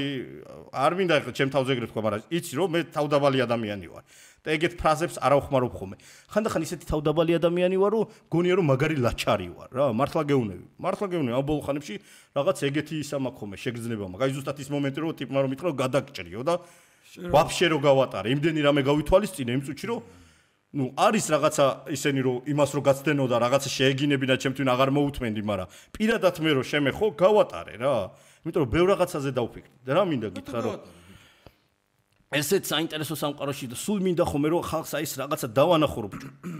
არ მინდა ახლა ჩემ თავზე ეგრე თქვა, მაგრამ იცი რომ მე თავდაბალი ადამიანი ვარ. და ეგეთ ფრაზებს არ ავხმარობ ხოლმე. ხანდახან ისეთი თავდაბალი ადამიანი ვარ, რომ გონია რომ მაგარი ლაჩარი ვარ, რა, მართლა გეუნები. ამ ბოლო ხანებში რაღაც ეგეთი ისა მაქვს ხოლმე, შეგრძნება მაქვს. აი ზუსტად ის მომენტი რომ ტიპმა რომ მითხრა გადაგჭრიო და ვაფშე რო გავატარე, იმდენი რამე გავითვალისწინე იმ წუთში რომ არის რაღაცა ისენი რომ იმას რო გაცდენო და რაღაცა შეეგინებინა ჩემთვის აღარ მოუთმენდი, მაგრამ პირადად მე რო შემეხო, გავატარე რა. იმიტომ რომ ბევრ რაღაცაზე დავფიქრდი. და რა მინდა გითხრა რომ ესეთ საინტერესო სამყაროში და სულ მინდა ხომ რომ ხალხს აი ეს რაღაცა დავანახო რომ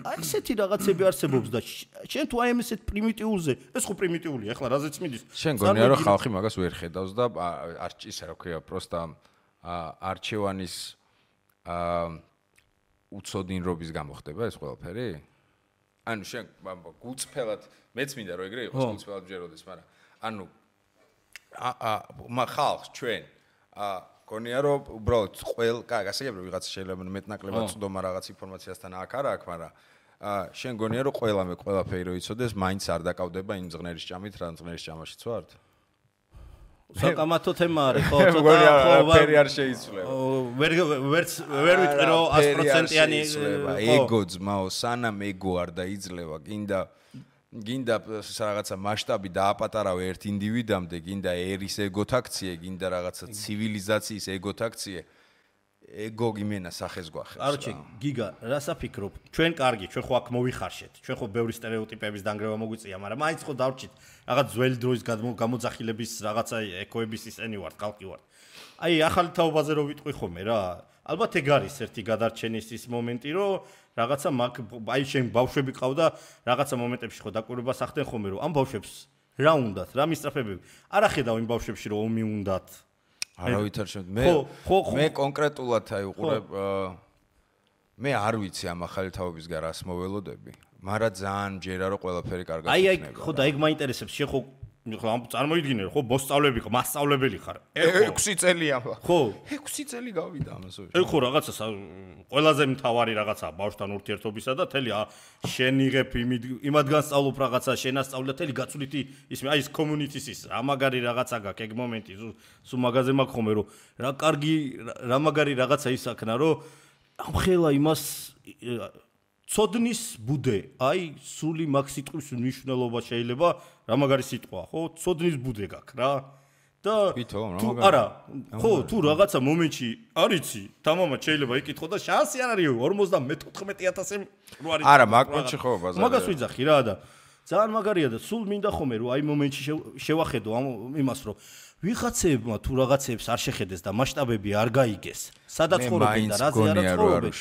აი ესეთი რაღაცები არსებობს და შენ თუ აი ესეთ პრიმიტიულზე, ეს ხო პრიმიტიულია, ახლა რაზეც მიდის. შენ გონია რომ ხალხი მაგას ვერ ხედავს და ისე რა ქვია, პროსტა არჩევანის უცოდინრობის გამოხდება ეს ყველაფერი? ანუ შენ გულწრფელად მეც მინდა რომ ეგრე იყოს, გულწრფელად ვჯეროდეს, მაგრამ ანუ ხალხს ჩვენ გონია რომ უბრალოდ გასაგებია ვიღაცა შეიძლება მეტნაკლებად წვდომა რაღაც ინფორმაციასთან აქ არა აქ, მაგრამ შენ გონია რომ ყველაფერი რო იცოდეს, მაინც არ დაკავდება იმ ზღნერის ჭამით, რა ზღნერის ჭამაშიც ვართ? საკამათო თემა არის, ხო, გონია ფერი არ შეიცვლება. ვერ ვიტყვი რომ 100%-იანი ეგო ძმაო, სანამ ეგო არ დაიძლევა, გინდა რაღაცა მასშტაბი დააპატარავე ერთ ინდივიდამდე, გინდა ერის ეგოთაქციე, გინდა რაღაცა ცივილიზაციის ეგოთაქციე, ეგო გიმენა სახეს გვახებს. არჩი, გიგა, რას აფიქრობ? ჩვენ კარგი, ჩვენ ხო აქ მოვიხარშეთ. ჩვენ ხო ბევრი სტერეოტიპების დანგრევა მოგვიწია, მაგრამ მაინც ხო დავრჩით რაღაც ძველი დროის გამოძახილების რაღაცა ეკოების ისენი ვართ, ხალხი ვართ. აი, ახალი თაობაზე რო ვიტყვი ხოლმე რა, ალბათ ეგ არის ერთი გადარჩენის ის მომენტი, რომ რაღაცა აი შენ ბავშვები ყავდა, რაღაცა მომენტებში ხო დაკვირვებას ახდენ ხოლმე, რომ ამ ბავშვებს რა უნდათ, რა მისწრაფებები. არ ახედავ იმ ბავშვებში, რომ ომი უნდათ. არავითარ მე კონკრეტულად აი უყურებ მე არ ვიცი ამ ახალი თაობის გარას მოველოდები, მაგრამ ძალიან ჯერა რომ ყველაფერი კარგად იქნება. აი ხო და ეგ მაინტერესებს, შენ ხო წარმოიდგინე ხო მოსწავლები ხო მასწავლებელი ხარ 6 წელია ხო 6 წელი გავიდა ამასო ეგ ხო რაღაცა ყველაზე მთავარი რაღაცა ბავშვთან ურთიერთობისა და თელი შენ იღებ იმადგან სწავლობ რაღაცა შენ ასწავლე და თელი გაცვლითი ისმე აი ეს community-ის ის რა მაგარი რაღაცა გაქვს ეგ მომენტი სულ მაგაზე მაქვს ხოლმე რომ რა კარგი რა მაგარი რაღაცა ისაქნა რომ ამხელა იმას ცოდნის ბუდე, აი სული მაგ სიტყვის მნიშვნელობა შეიძლება რა მაგარი სიტყვა, ხო? ცოდნის ბუდე გაქვს რა. და თუ არა, ხო, თუ რაღაცა მომენტში არიცი, თამამად შეიძლება იკითხო და შანსი არ არის 54,000 რო არის. არა, მაგ მომენტში ხო ბაზარი. მაგას ვიძახი რა და ძალიან მაგარია და სულ მინდა ხომე რომ აი მომენტში შევახედო იმას რომ ვიღაცებმა თუ რაღაცებს არ შეხედეს და მასშტაბები არ გაიგეს. სადაც ხორობენ და რაზე არ ხორობენ.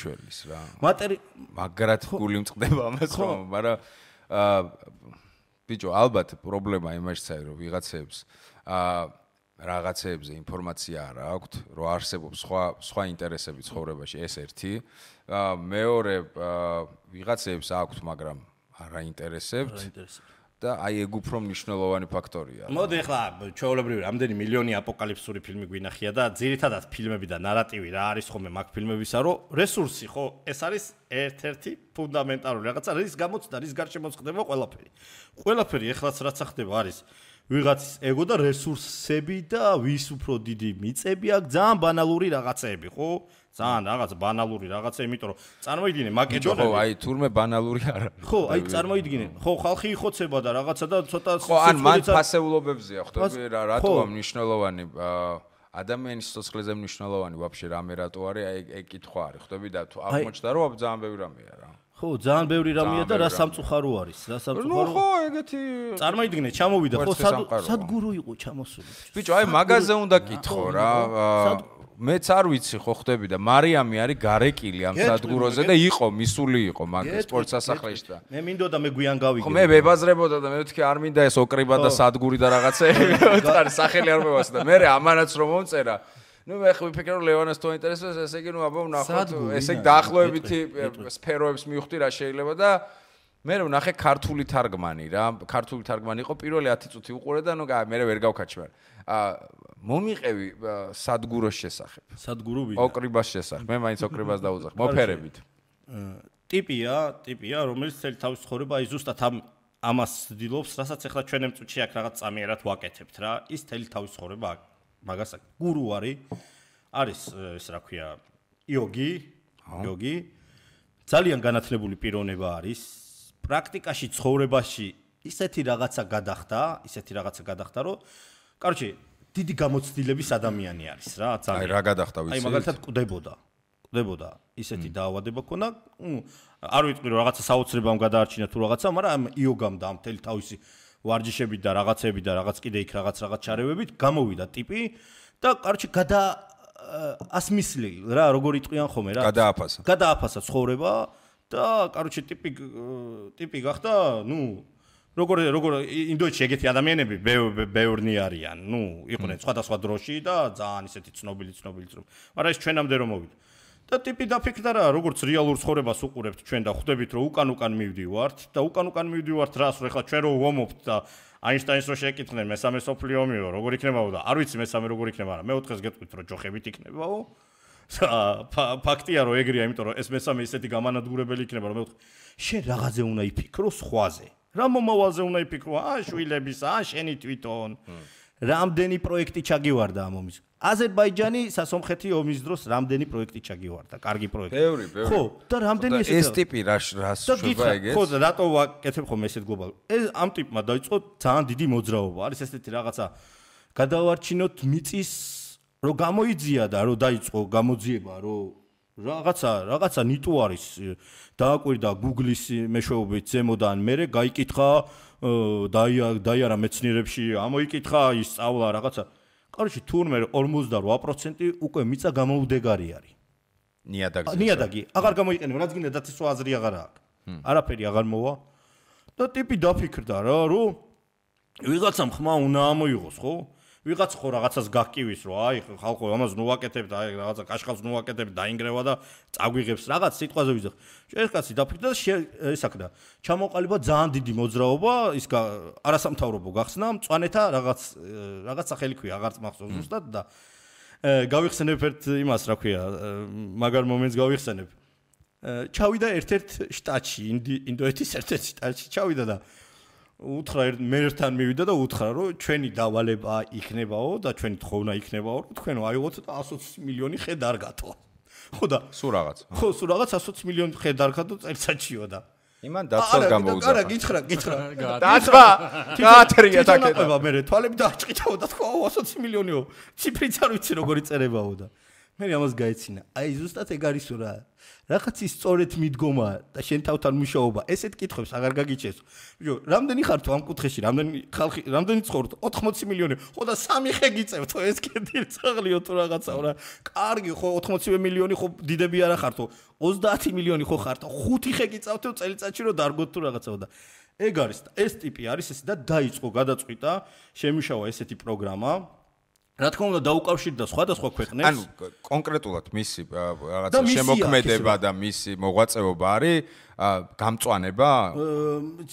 მაგრად გული მწყდება ამას რომ, მაგრამ ბიჭო, ალბათ პრობლემა იმაშიც არის რომ ვიღაცებს რაღაცებზე ინფორმაცია არ აქვთ, რომ არსებობს სხვა ინტერესები ცხოვრებაში, ეს ერთი. მეორე ვიღაცებს აქვთ, მაგრამ არ აინტერესებთ. და აი ეგ უფრო მნიშვნელოვანი ფაქტორია. მოდი ახლა ჩვეულებრივი რამდენი მილიონი აპოკალიფსური ფილმი გვინახია და ძირითადად ფილმები და ნარატივი რა არის ხოლმე მაგ ფილმებისა, რომ რესურსი ხო, ეს არის ერთ-ერთი ფუნდამენტალური რაღაცა, რის გამოც და რის გარშემოც ხდება ყველაფერი. ყველაფერი ეხლაც რაც ხდება არის ვიღაცის ეგო და რესურსები და ვის უფრო დიდი მიწები აქვს, ძალიან ბანალური რაღაცეები, ხო? ძალიან რაღაც ბანალური რაღაცა, იმიტომ რომ წარმოიდგინე მაკედონელი. ხო, აი თურმე ბანალური არ არის. ხო, აი წარმოიდგინე. ხო, ხალხი იხოცება და რაღაცა და ცოტა ხო, ან მან ფასეულობებზია, ხვდები რა, რატო ამ მნიშვნელოვანი ადამიანის სიცოცხლეზე მნიშვნელოვანი ვაფშე რამე რატო არის, აი ეგ კითხვა არის, ხვდები და თუ აღმოჩნდა რომ ძალიან ბევრი რამეა რა. ხო, ძალიან ბევრი რამეა და რა სამწუხარო არის, რა სამწუხარო. ნუ ხო, ეგეთი წარმოიდგინე, ჩამოვიდა, ხო, სადგურო იყო ჩამოსული. ბიჭო, აი მაგაზე უნდა კითხო რა. მეც არ ვიცი ხო ხდები და მარიამი არის გარეკილი ამ სადგუროზე და იყო მისული იყო მაგ სპორტ სასახლეში და მე მინდოდა მე გვიან გავიგე ხო მე ვებაზრებოდა და მე ვთქვი არ მინდა ეს ოკრიბა და სადგური და რაღაცეები ვთქვი სახელი არ მევასე და მე ამანაც რომ მომწერა ნუ მე ხო ვიფიქრე რომ ლევანას თუ ინტერესებს ესე იგი ნუ აბა ვნახოთ ესე იგი დაახლოებითი სფეროებს მივხვდი რა შეიძლება და მე ვნახე ქართული თარგმანი რა ქართული თარგმანი იყო პირველი 10 წუთი უყურე და ნუ მე ვერ გავქაჩი მაგრამ მომიყევი სადგუროს შესახებ. სადგურო ვიდა. ოკრიბას შესახებ. მე მაინც ოკრიბას დავუძახ. მოფერებით. ტიპია, რომელიც წელი თავის ცხოვრება აი ზუსტად ამას ცდილობს, რასაც ახლა ჩვენ ემწუჩი აქ რაღაც წამიერად ვაკეთებთ რა. ის წელი თავის ცხოვრება მაგას გურუ არის ეს რა ქვია, იოგი. ძალიან განათლებული პიროვნება არის. პრაქტიკაში ცხოვრებაში ისეთი რაღაცა გადახდა, რომ კაროჩე, დიდი გამოცდილების ადამიანი არის რა, ძალიან. აი რა გადახდა ვიცი? აი მაგალითად კვდებოდა. ისეთი დაავადება ქონა, არ ვიტყვი რომ რაღაცა საოცრებამ გადაარჩინა თუ რაღაცა, მაგრამ იოგამ და ამ მთელი თავისი ვარჯიშებით და რაღაცები და რაღაც კიდე იქ რაღაც ჩარევებით გამოვიდა ტიპი და კაროჩე ასმისლი რა, როგორ იტყვიან ხოლმე რა. გადააფასა ცხოვრება და კაროჩე ტიპი გახდა, როგორ ინდოეთში ეგეთი ადამიანები ბევრნი არიან, იყვნენ სხვადასხვა დროში და ძალიან ისეთი ცნობილი, მაგრამ ეს ჩვენამდე რომ მოვიდა. და ტიპი დაფიქრდა რა, როგორც რეალურ ცხოვრებას უყურებთ ჩვენ და ხვდებით რომ უკან მივდივართ და უკან მივდივართ რას, რომ ეხლა ჩვენ რო ვომობთ და აინშტაინს რო შეკითხდნენ მესამე სოფლიო ომიო, როგორ იქნებაო და არ ვიცი მესამე როგორ იქნება, მაგრამ მეოთხეს გეტყვით რომ ჯოხებით იქნებაო. ფაქტია რომ ეგრეა, იმიტომ რომ ეს მესამე ისეთი გამანადგურებელი იქნება, რომ მეოთხე შენ რაღაცზე უნდა იფიქრო სხვაზე. რა მომავალზე უნდა იფიქრო, შვილებისა, შენი თვითონ. რამდენი პროექტი ჩაგივარდა ამ ომის. აზერბაიჯანი სასომხეთი ომის დროს რამდენი პროექტი ჩაგივარდა, კარგი პროექტი. ბევრი. ხო, და რამდენი ეს ტიპი რას შვება ეგეც? ხო, და რატო ვაკეთებ ხოლმე ესეთ გლობალ. ამ ტიპმა დაიწყო ძალიან დიდი მოძრაობა. არის ესეთი რაღაცა გადავარჩინოთ მიწის, რომ გამოიძია და რომ დაიწყო გამოძიება, რომ რაღაცა ნიტუ არის დააკვირდა Google-ის მეშვეობით ზემოდან მერე გაიკითხა დაიარა მეცნიერებში ამოიკითხა ისწავლა რაღაცა. კაროჩე თურმე 48% უკვე მიწა გამოუდეგარი არის. ნიადაგი აღარ გამოიყენება, რაც გინდა დაცვა აზრი აღარ აქვს. არაფერი აღარ მოვა და ტიპი დაფიქრდა რა, რომ ვიღაცამ ხმა უნდა ამოიღოს, ხო? ვიღაც ხო რაღაცას გაკივის, რომ აი ხალხო ამას ნუაკეთებ და აი რაღაცა კაშხალს ნუაკეთებ დაინგრევა და წაგვიღებს რაღაც სიტყვაზე ვიზახ. ეს კაცი დაფიქრდა და ესაკდა. ჩამოყალიბა ძალიან დიდი მოძრაობა, ის არასამთავრობო გახსნა, მწვანეთა რაღაც სახელი ქვია, აღარც მახსოვს ზუსტად და გავიხსენებ ერთ იმას, რა ქვია, მაგარ მომენტს გავიხსენებ. ჩავიდა ერთ-ერთ შტატში, ინდოეთის ერთ-ერთ შტატში ჩავიდა და უთხრა მე ერთთან მივიდა და უთხრა რომ ჩვენი დავალება იქნებაო და ჩვენი თხოვნა იქნებაო რომ თქვენ აიღოთ და 120 მილიონი ხე დარგათო. ხო და სულ რაღაც. ხო, სულ რაღაც 120 მილიონი ხე დარგათო წელიწადშიო და იმან დაცვას გამოუძახა. არა, გითხრა. დაცვა. გაათრია თაკედა. მე თვალები დააჭყიდაო და თქვა 120 მილიონიო. ციფრიც არ ვიცი როგორი წერებაო და მე ამას გაეცინა. აი ზუსტად ეგ არისო რა. რაღაცის სწორედ მიდგომა და შენ თავთან მუშაობა, ესეთ კითხვებს აღარ გაგიჩეს. ბიჭო, რამდენი ხარ თუ ამ კუთხეში, რამდენი ცხოვრობ? 80 მილიონი. ხო და 3 ხე გიწევთ, ეს კიდე წაღლიო თუ რაღაცაო რა. კარგი, ხო 80 მილიონი ხო დიდები არა ხართო. 30 მილიონი ხო ხართო. 5 ხე გიწევთო წელიწადში რომ დარგოთ თუ რაღაცაო და ეგ არის, ეს ტიპი არის ესე და დაიწყო გადაწყვიტა, შემუშავა ესეთი პროგრამა. რა თქმა უნდა დაუკავშირდა სხვადასხვა ქვეყნებს. ანუ კონკრეტულად მისი რაღაცა შემოქმედება და მისი მოღვაწეობა არის გამწვანება?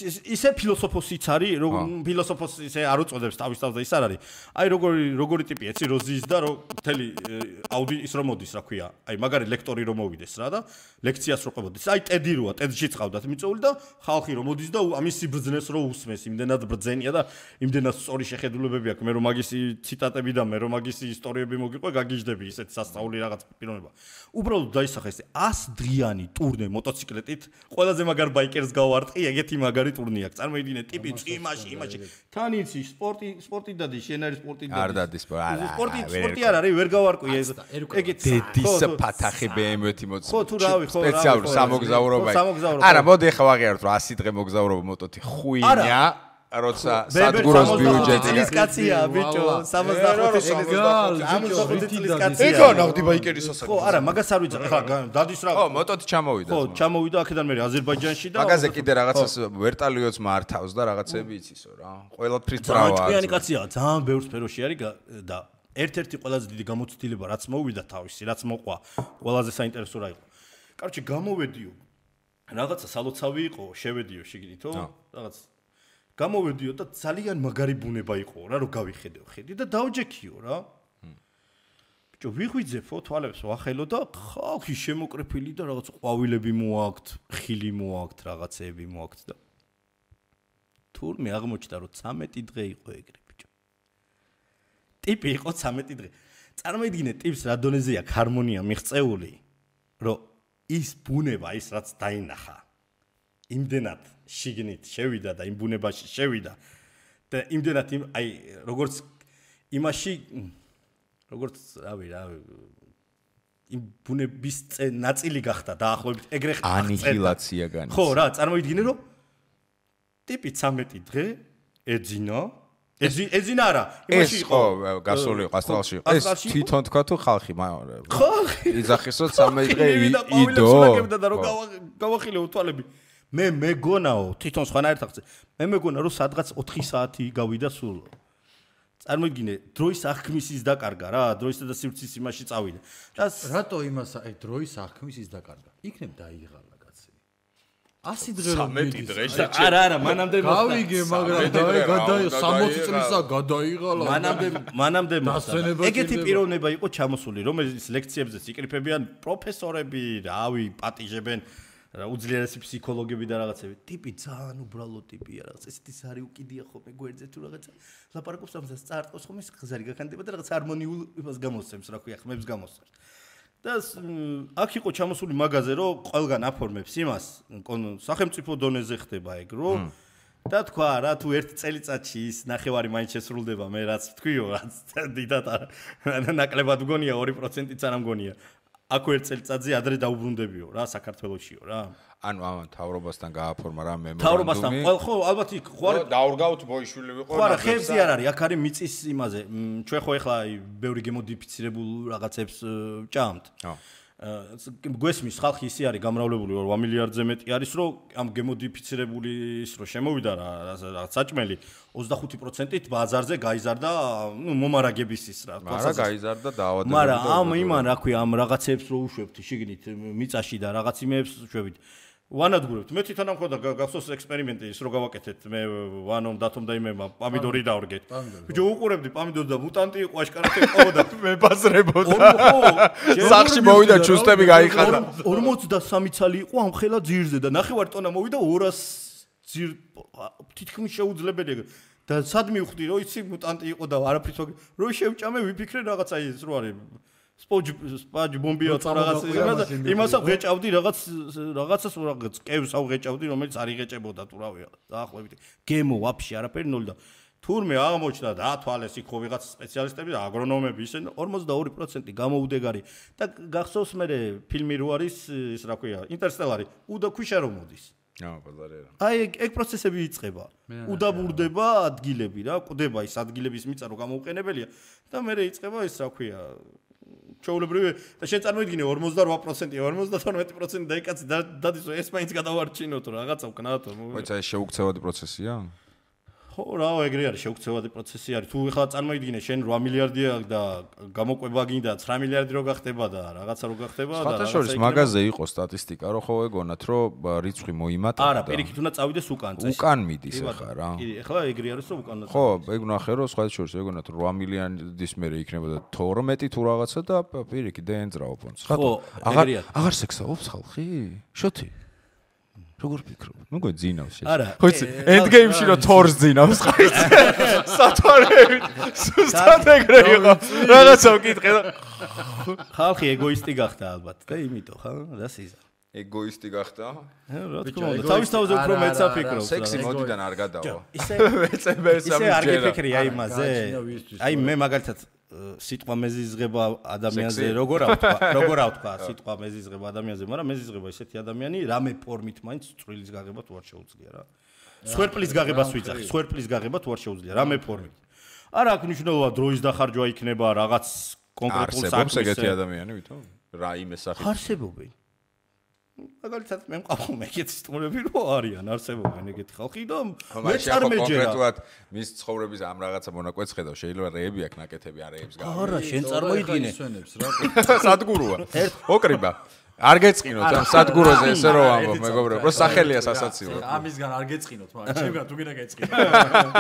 ისე ფილოსოფოსიც არის, რომ ფილოსოფოსი ისე არ უწოდებს თავის თავს და ის არ არის. აი როგორი ტიპი ეცი როზის და რომ მთელი ის რომ მოდის, რა ქვია. აი მაგარი ლექტორი რომ მოვიდეს რა და ლექციას რო ყვებოდეს. აი ტედი როა, ტედში წავდათ მიწეული და ხალხი რომ მოდის და ამის სიბრძნეს რო უსმეს, იმდენად ბრძენია და იმდენად სწორი შეხედულებები აქვს. მე რომ მაგისი ციტატები და მე რომ მაგისი ისტორიები მოგიყვე, გაგიჟდები ისეთ სასწაული რაღაც პიროვნება. უბრალოდ დაისახა ეს 100 დღიანი ტურნე მოტოციკლეტით. ყველაზე მაგარ ბაიკერს გავარტყი, ეგეთი მაგარი ტურნე აქვს. წარმოიდგინე, ტიპი იმაში. თან იცი, სპორტი დადი, შენ არის სპორტი დადი. არ დადის, არა. სპორტი არ არის, ვერ გავარკვი ეს. ეგეთი დედის ფათახი BMW-ი მოწ. ხო, თუ რავი, ხო. სპეციალური სამოგზაურობა. არა, მოდი ახლა ვაღიაროთ, რომ 100 დღე მოგზაურობა მოტოთი ხუინია. როცა სადგუროს ბიუჯეტი წლის კაცია ბიჭო 65 წლის კაცია ეგო ნახდი ბაიკერის ასაკი ხო არა მაგას არ ვიცი ხა დადის რა ხო მოტოთი ჩამოვიდა ხო ჩამოვიდა აქედან მე აზერბაიჯანში და მაგაზე კიდე რაღაცას ვერტალიოც მართავს და რაღაცები იცისო რა ყველაფრის ბრავაა ჭკვიანი კაცია ძალიან ბევრ სფეროში არის და ერთ-ერთი ყველაზე დიდი გამოცდილება რაც მოვიდა თავისი რაც მოყვა ყველაზე საინტერესო რა იყო კაროჩე გამოვედიო რაღაცა სალოცავი იყო შევედიო შეგიდითო რაღაც გამოვედიო და ძალიან მაგარი ბუნება იყო რა რომ გავიხედეო ხედი და დავჯექიო რა ბიჭო ვიღვიძეფო თვალებს ვახელო და ხალხი შემოკრეფილი და რაღაც ყვავილები მოაქვთ ხილი მოაქვთ რაღაცეები მოაქვთ და თურმე აღმოჩნდა რომ 13 დღე იყო ეგრე ბიჭო ტიპი იყო 13 დღე წარმოიდგინე ტიპს რა დონეზე აქვს ჰარმონია მიღწეული რომ ის ბუნება ის რაც დაინახა იმდენად შიგნით შევიდა და იმ ბუნებაში შევიდა და იმდენად აი როგორც იმაში როგორც რავი იმ ბუნების ნაწილი გახდა დაახლოებით ეგრე ხარ ანიჰილაცია განიცადა ხო რა წარმოიდგინე რომ ტიპი 13 დღე ეძინა არა იმაში იყო გასული ყასტალში ეს თვითონ თქვა თუ ხალხი იძახისო 13 დღე იდო და რომ გავახილეო თვალები მე მეგონაო თვითონ სხვანაირად ახცე მე მეგონა რომ სადღაც 4 საათი გავიდა სულ წარმოიდგინე დროის აღქმის ის დაკარგა რა დროისა და სივრცის იმაში წავიდა რატო იმას აი დროის აღქმის ის დაკარგა იქნებ დაიღალა კაცი 100 დღე რომ მიდის არა მანამდე გავიგე მაგრამ გადაიღალა 60 წლისა გადაიღალა მანამდე ეგეთი პიროვნება იყო ჩამოსული რომელიც ლექციებზეც იკრიფებიან პროფესორები რავი პატიჟებენ უძლიერესი ფსიქოლოგები და რაღაცები ტიპი ძალიან უბრალო ტიპია რაღაც ესეთი სარი უკიდია ხოლმე გვერდზე თუ რაღაცა ლაპარაკობს ამას წაარტყოს ხოლმე ხზარი გაქანდება და რაღაც ჰარმონიულ იმას გამოსცემს რა ქვია ხმებს გამოსცემს და აქ იყო ჩამოსული მაგაზე რომ ყველგან აფორმებს იმას სახელმწიფო დონეზე ხდება ეგ რომ და თქვა რა თუ ერთ წელიწადში ის ნახევარი მაინც შესრულდება მე რაც თქვიო რაც დიდად ნაკლებად მგონია 2%-იც არ მგონია აქ ერთ წელიწადზე ადრე დაუბრუნდებიო რა საქართველოსიო რა ანუ ამან თავრობასთან გააფორმა რა მემორანდუმი თავრობასთან ხო ალბათ იქ ხო არ დაურგავთ ბოიშვილი ვიყო ხო არა ხებზე არ არის აქ არის მიწის იმაზე ჩვენ ხო ეხლა ბევრი გემოდიფიცირებულ რაღაცებს ჭამთ გვესმის ხალხი ისე არის გამრავლებული 8 მილიარდზე მეტი არის რომ ამ გემოდიფიცირებული ის რომ შემოვიდა რა საჭმელი 25%-ით ბაზარზე გაიზარდა მომარაგების ის რა მაგრამ გაიზარდა დაავადებები მაგრამ ამ იმან რა ქვია ამ რაღაცებს რო უშვებთ შიგნით მიწაში და რაღაც იმეებს უშვებით ვანადგურებთ მე თვითონ ამ ხოდა გახსოვს ექსპერიმენტი ის რო გავაკეთეთ მე ვანომ დათომ და იმემა პამიდორი დავრგეთ ბიჭო უყურებდი პამიდორი და მუტანტი იყო აშკარად ეყავდა მებაზრებოდა სახში მოვიდა ჩუსტები გაიხადა 43 ცალი იყო ამ ხელა ძირზე და ნახევარ ტონა მოვიდა 200 ძირ თითქმის შეუძლებელია და სად მივხვდი რომ იცი მუტანტი იყო და არაფრით რო შევჭამე ვიფიქრე რაღაცა ის რო არის სპაჯ ბომბია რაღაც იმას აღეჭავდი რაღაცას კევს აღეჭავდი რომელიც არ იღეჭებოდა თუ რავია დაახლოებით გემო ვაფშე არაფერი ნოლი და თურმე აღმოჩნდა და ათვალეს იქ ხო ვიღაც სპეციალისტები და აგრონომები ისე 42% გამოუდეგარი და გახსოვს მე ფილმი რო არის ის რა ქვია ინტერსტელარი უდა ქვიშა რომ მოდის აი ეგ პროცესები იწყება უდაბურდება ადგილები რა კვდება ის ადგილების მიწა რო გამოუყენებელია და მე იწყება ის რა ქვია ჩაულებრივი და შენ წარმოიდგინე 48% 52% დაიკაცი დადის ეს მაინც გადავარჩინოთ რაღაცა ვკნათ მოიცა ეს შეუქცევადი პროცესია ხო რა ეგრე არის შეუქცევადი პროცესი არის თუ ეხლა წარმოიდგინე შენ 8 მილიარდია და გამოყვება გინდა 9 მილიარდი რო გახდება და რაღაცა რო გახდება და რაღაცა შორის მაგაზე იყო სტატისტიკა რომ ხო ეგონათ რომ რიცხვი მოიმატა არა პირიქით უნდა წავიდეს უკან წესი უკან მიდის ახლა რა კი ეხლა ეგრე არის რომ უკან ხო ეგ ნახე რომ სხვა შორის ეგონათ 8 მილიონის მერე იქნებოდა 12 თუ რაღაცა და პირიქით დაენძრაო ფონდს ხო აღარ სექსაობს ხალხი შოთი როგორ ფიქრობ? ნუ გვეძინავს შეიძლება. ხო იცი, ენდგეიმში რო თორს ძინავს ხა იცი. სათვალე სუსტად ეგრე იყო. რაღაცა ვკითხე და ხალხი ეგოისტი გახდა ალბათ და იმიტომ ხა და სიზა. ეგოისტი გახდა? რა თქმა უნდა, თავის თავზე უფრო მეც აფიქრობს. სექსი მოდიდან არ გადავა. ისე არ გიფიქრი აი იმაზე. აი მე მაგალითად სიტყვა მეზიზღება ადამიანზე როგორ ავთქვა სიტყვა მეზიზღება ადამიანზე მაგრამ მეზიზღება ისეთი ადამიანი რამე ფორმით მაინც წვრილის გაღება თუ არ შეუძლია რა სვერპლის გაღებას ვიძახი სვერპლის გაღება თუ არ შეუძლია რამე ფორმით არა აქ მნიშვნელობა დროის დახარჯვა იქნება რაღაც კონკრეტულ საქმეს ეგეთი ადამიანი ვითომ რა იმეს სახით არსებობენ მაგალითად მე მყავს მეგეთი სტუმრები რო არიან არსებობენ ეგეთი ხალხი და მე წარმეჯერა კონკრეტულად მის ცხოვრების ამ რაღაცა მონაკვეთს ხედავ შეიძლება რეები აქ ნაკეთები არეებს გა არა შენ წარმოიდგინე სადგუროა ოკრიბა არ გეწყინოთ ამ სადგუროზე ესე რო ამბობ მეგობრებო რო სახელია სასაცილო ამისგან არ გეწყინოთ მაგრამ ჩემგან თუ გინდა გეწყინო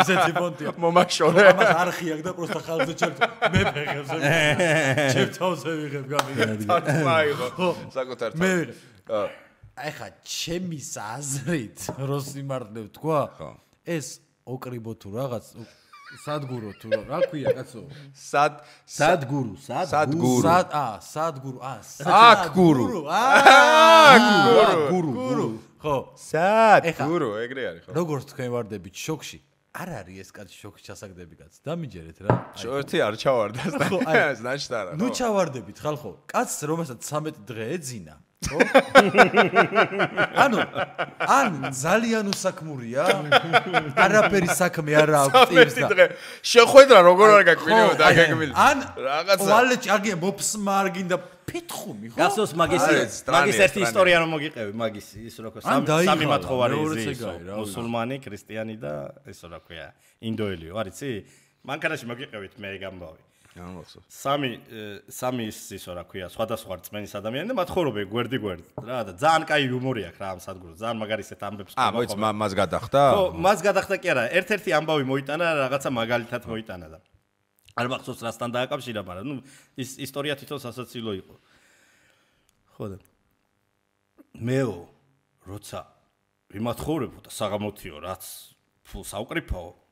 ისეთი ფონტია მომაშორე ამას არხი აქვს და პროსტა ხალხზე ჩემ მე ფეხებს ჩემ თავზე ვიღებ გამიგე მაიღო საკუთარ მე აი ხა ჩემის აზრით როს იმართებ თქვა ეს ოკრიბო თუ რაღაც სადგურო თუ რა ქვია კაცო სადგურო ხო სადგურო ეგრე არის ხო როგორც თქვენ ვარდებით შოქში არ არის ეს კაცი შოქში ჩასაგდები კაც დამიჯერეთ რა შოთი არ ჩავარდა ნაშტარა ნუ ჩავარდებით ხალხო კაცს რომელსაც 13 დღე ეძინა ხო ანუ ძალიან უსაქმურია არაფერი საქმე არ აქვს ტირს და შეხვედრა როგორ არ გაკმინებოდა დაგეგმილი რაღაცა ვალეჭი აგია მოფსმა არ გინდა ფითხუმი ხო გასოს მაგის ერთი ისტორია რომ მოგიყევი მაგის ის რა ქვია სამი მათხოვარი მუსულმანი ქრისტიანი და ეს რა ქვია ინდოელიო არიცი მანქანაში მოგიყევით მე გამბავი სამი ის რა ქვია სხვადასხვა რწმენის ადამიანი და მათხოვრობე გვერდი რა და ძალიან კაი იუმორი აქვს რა ამ სადგურს ძალიან მაგარისეთ ამბებს მოიც მას გადახდა ხო მას გადახდა კი არა ერთ-ერთი ამბავი მოიტანა რაღაცა მაგალითად მოიტანა და არ მახსოვს რასთან დააკავშირა მაგრამ ნუ ის ისტორია თვითონ სასაცილო იყო ხო და მეო როცა ვიმათხოვრებო და საღამოთიო რაც ფულს ავკრიფაო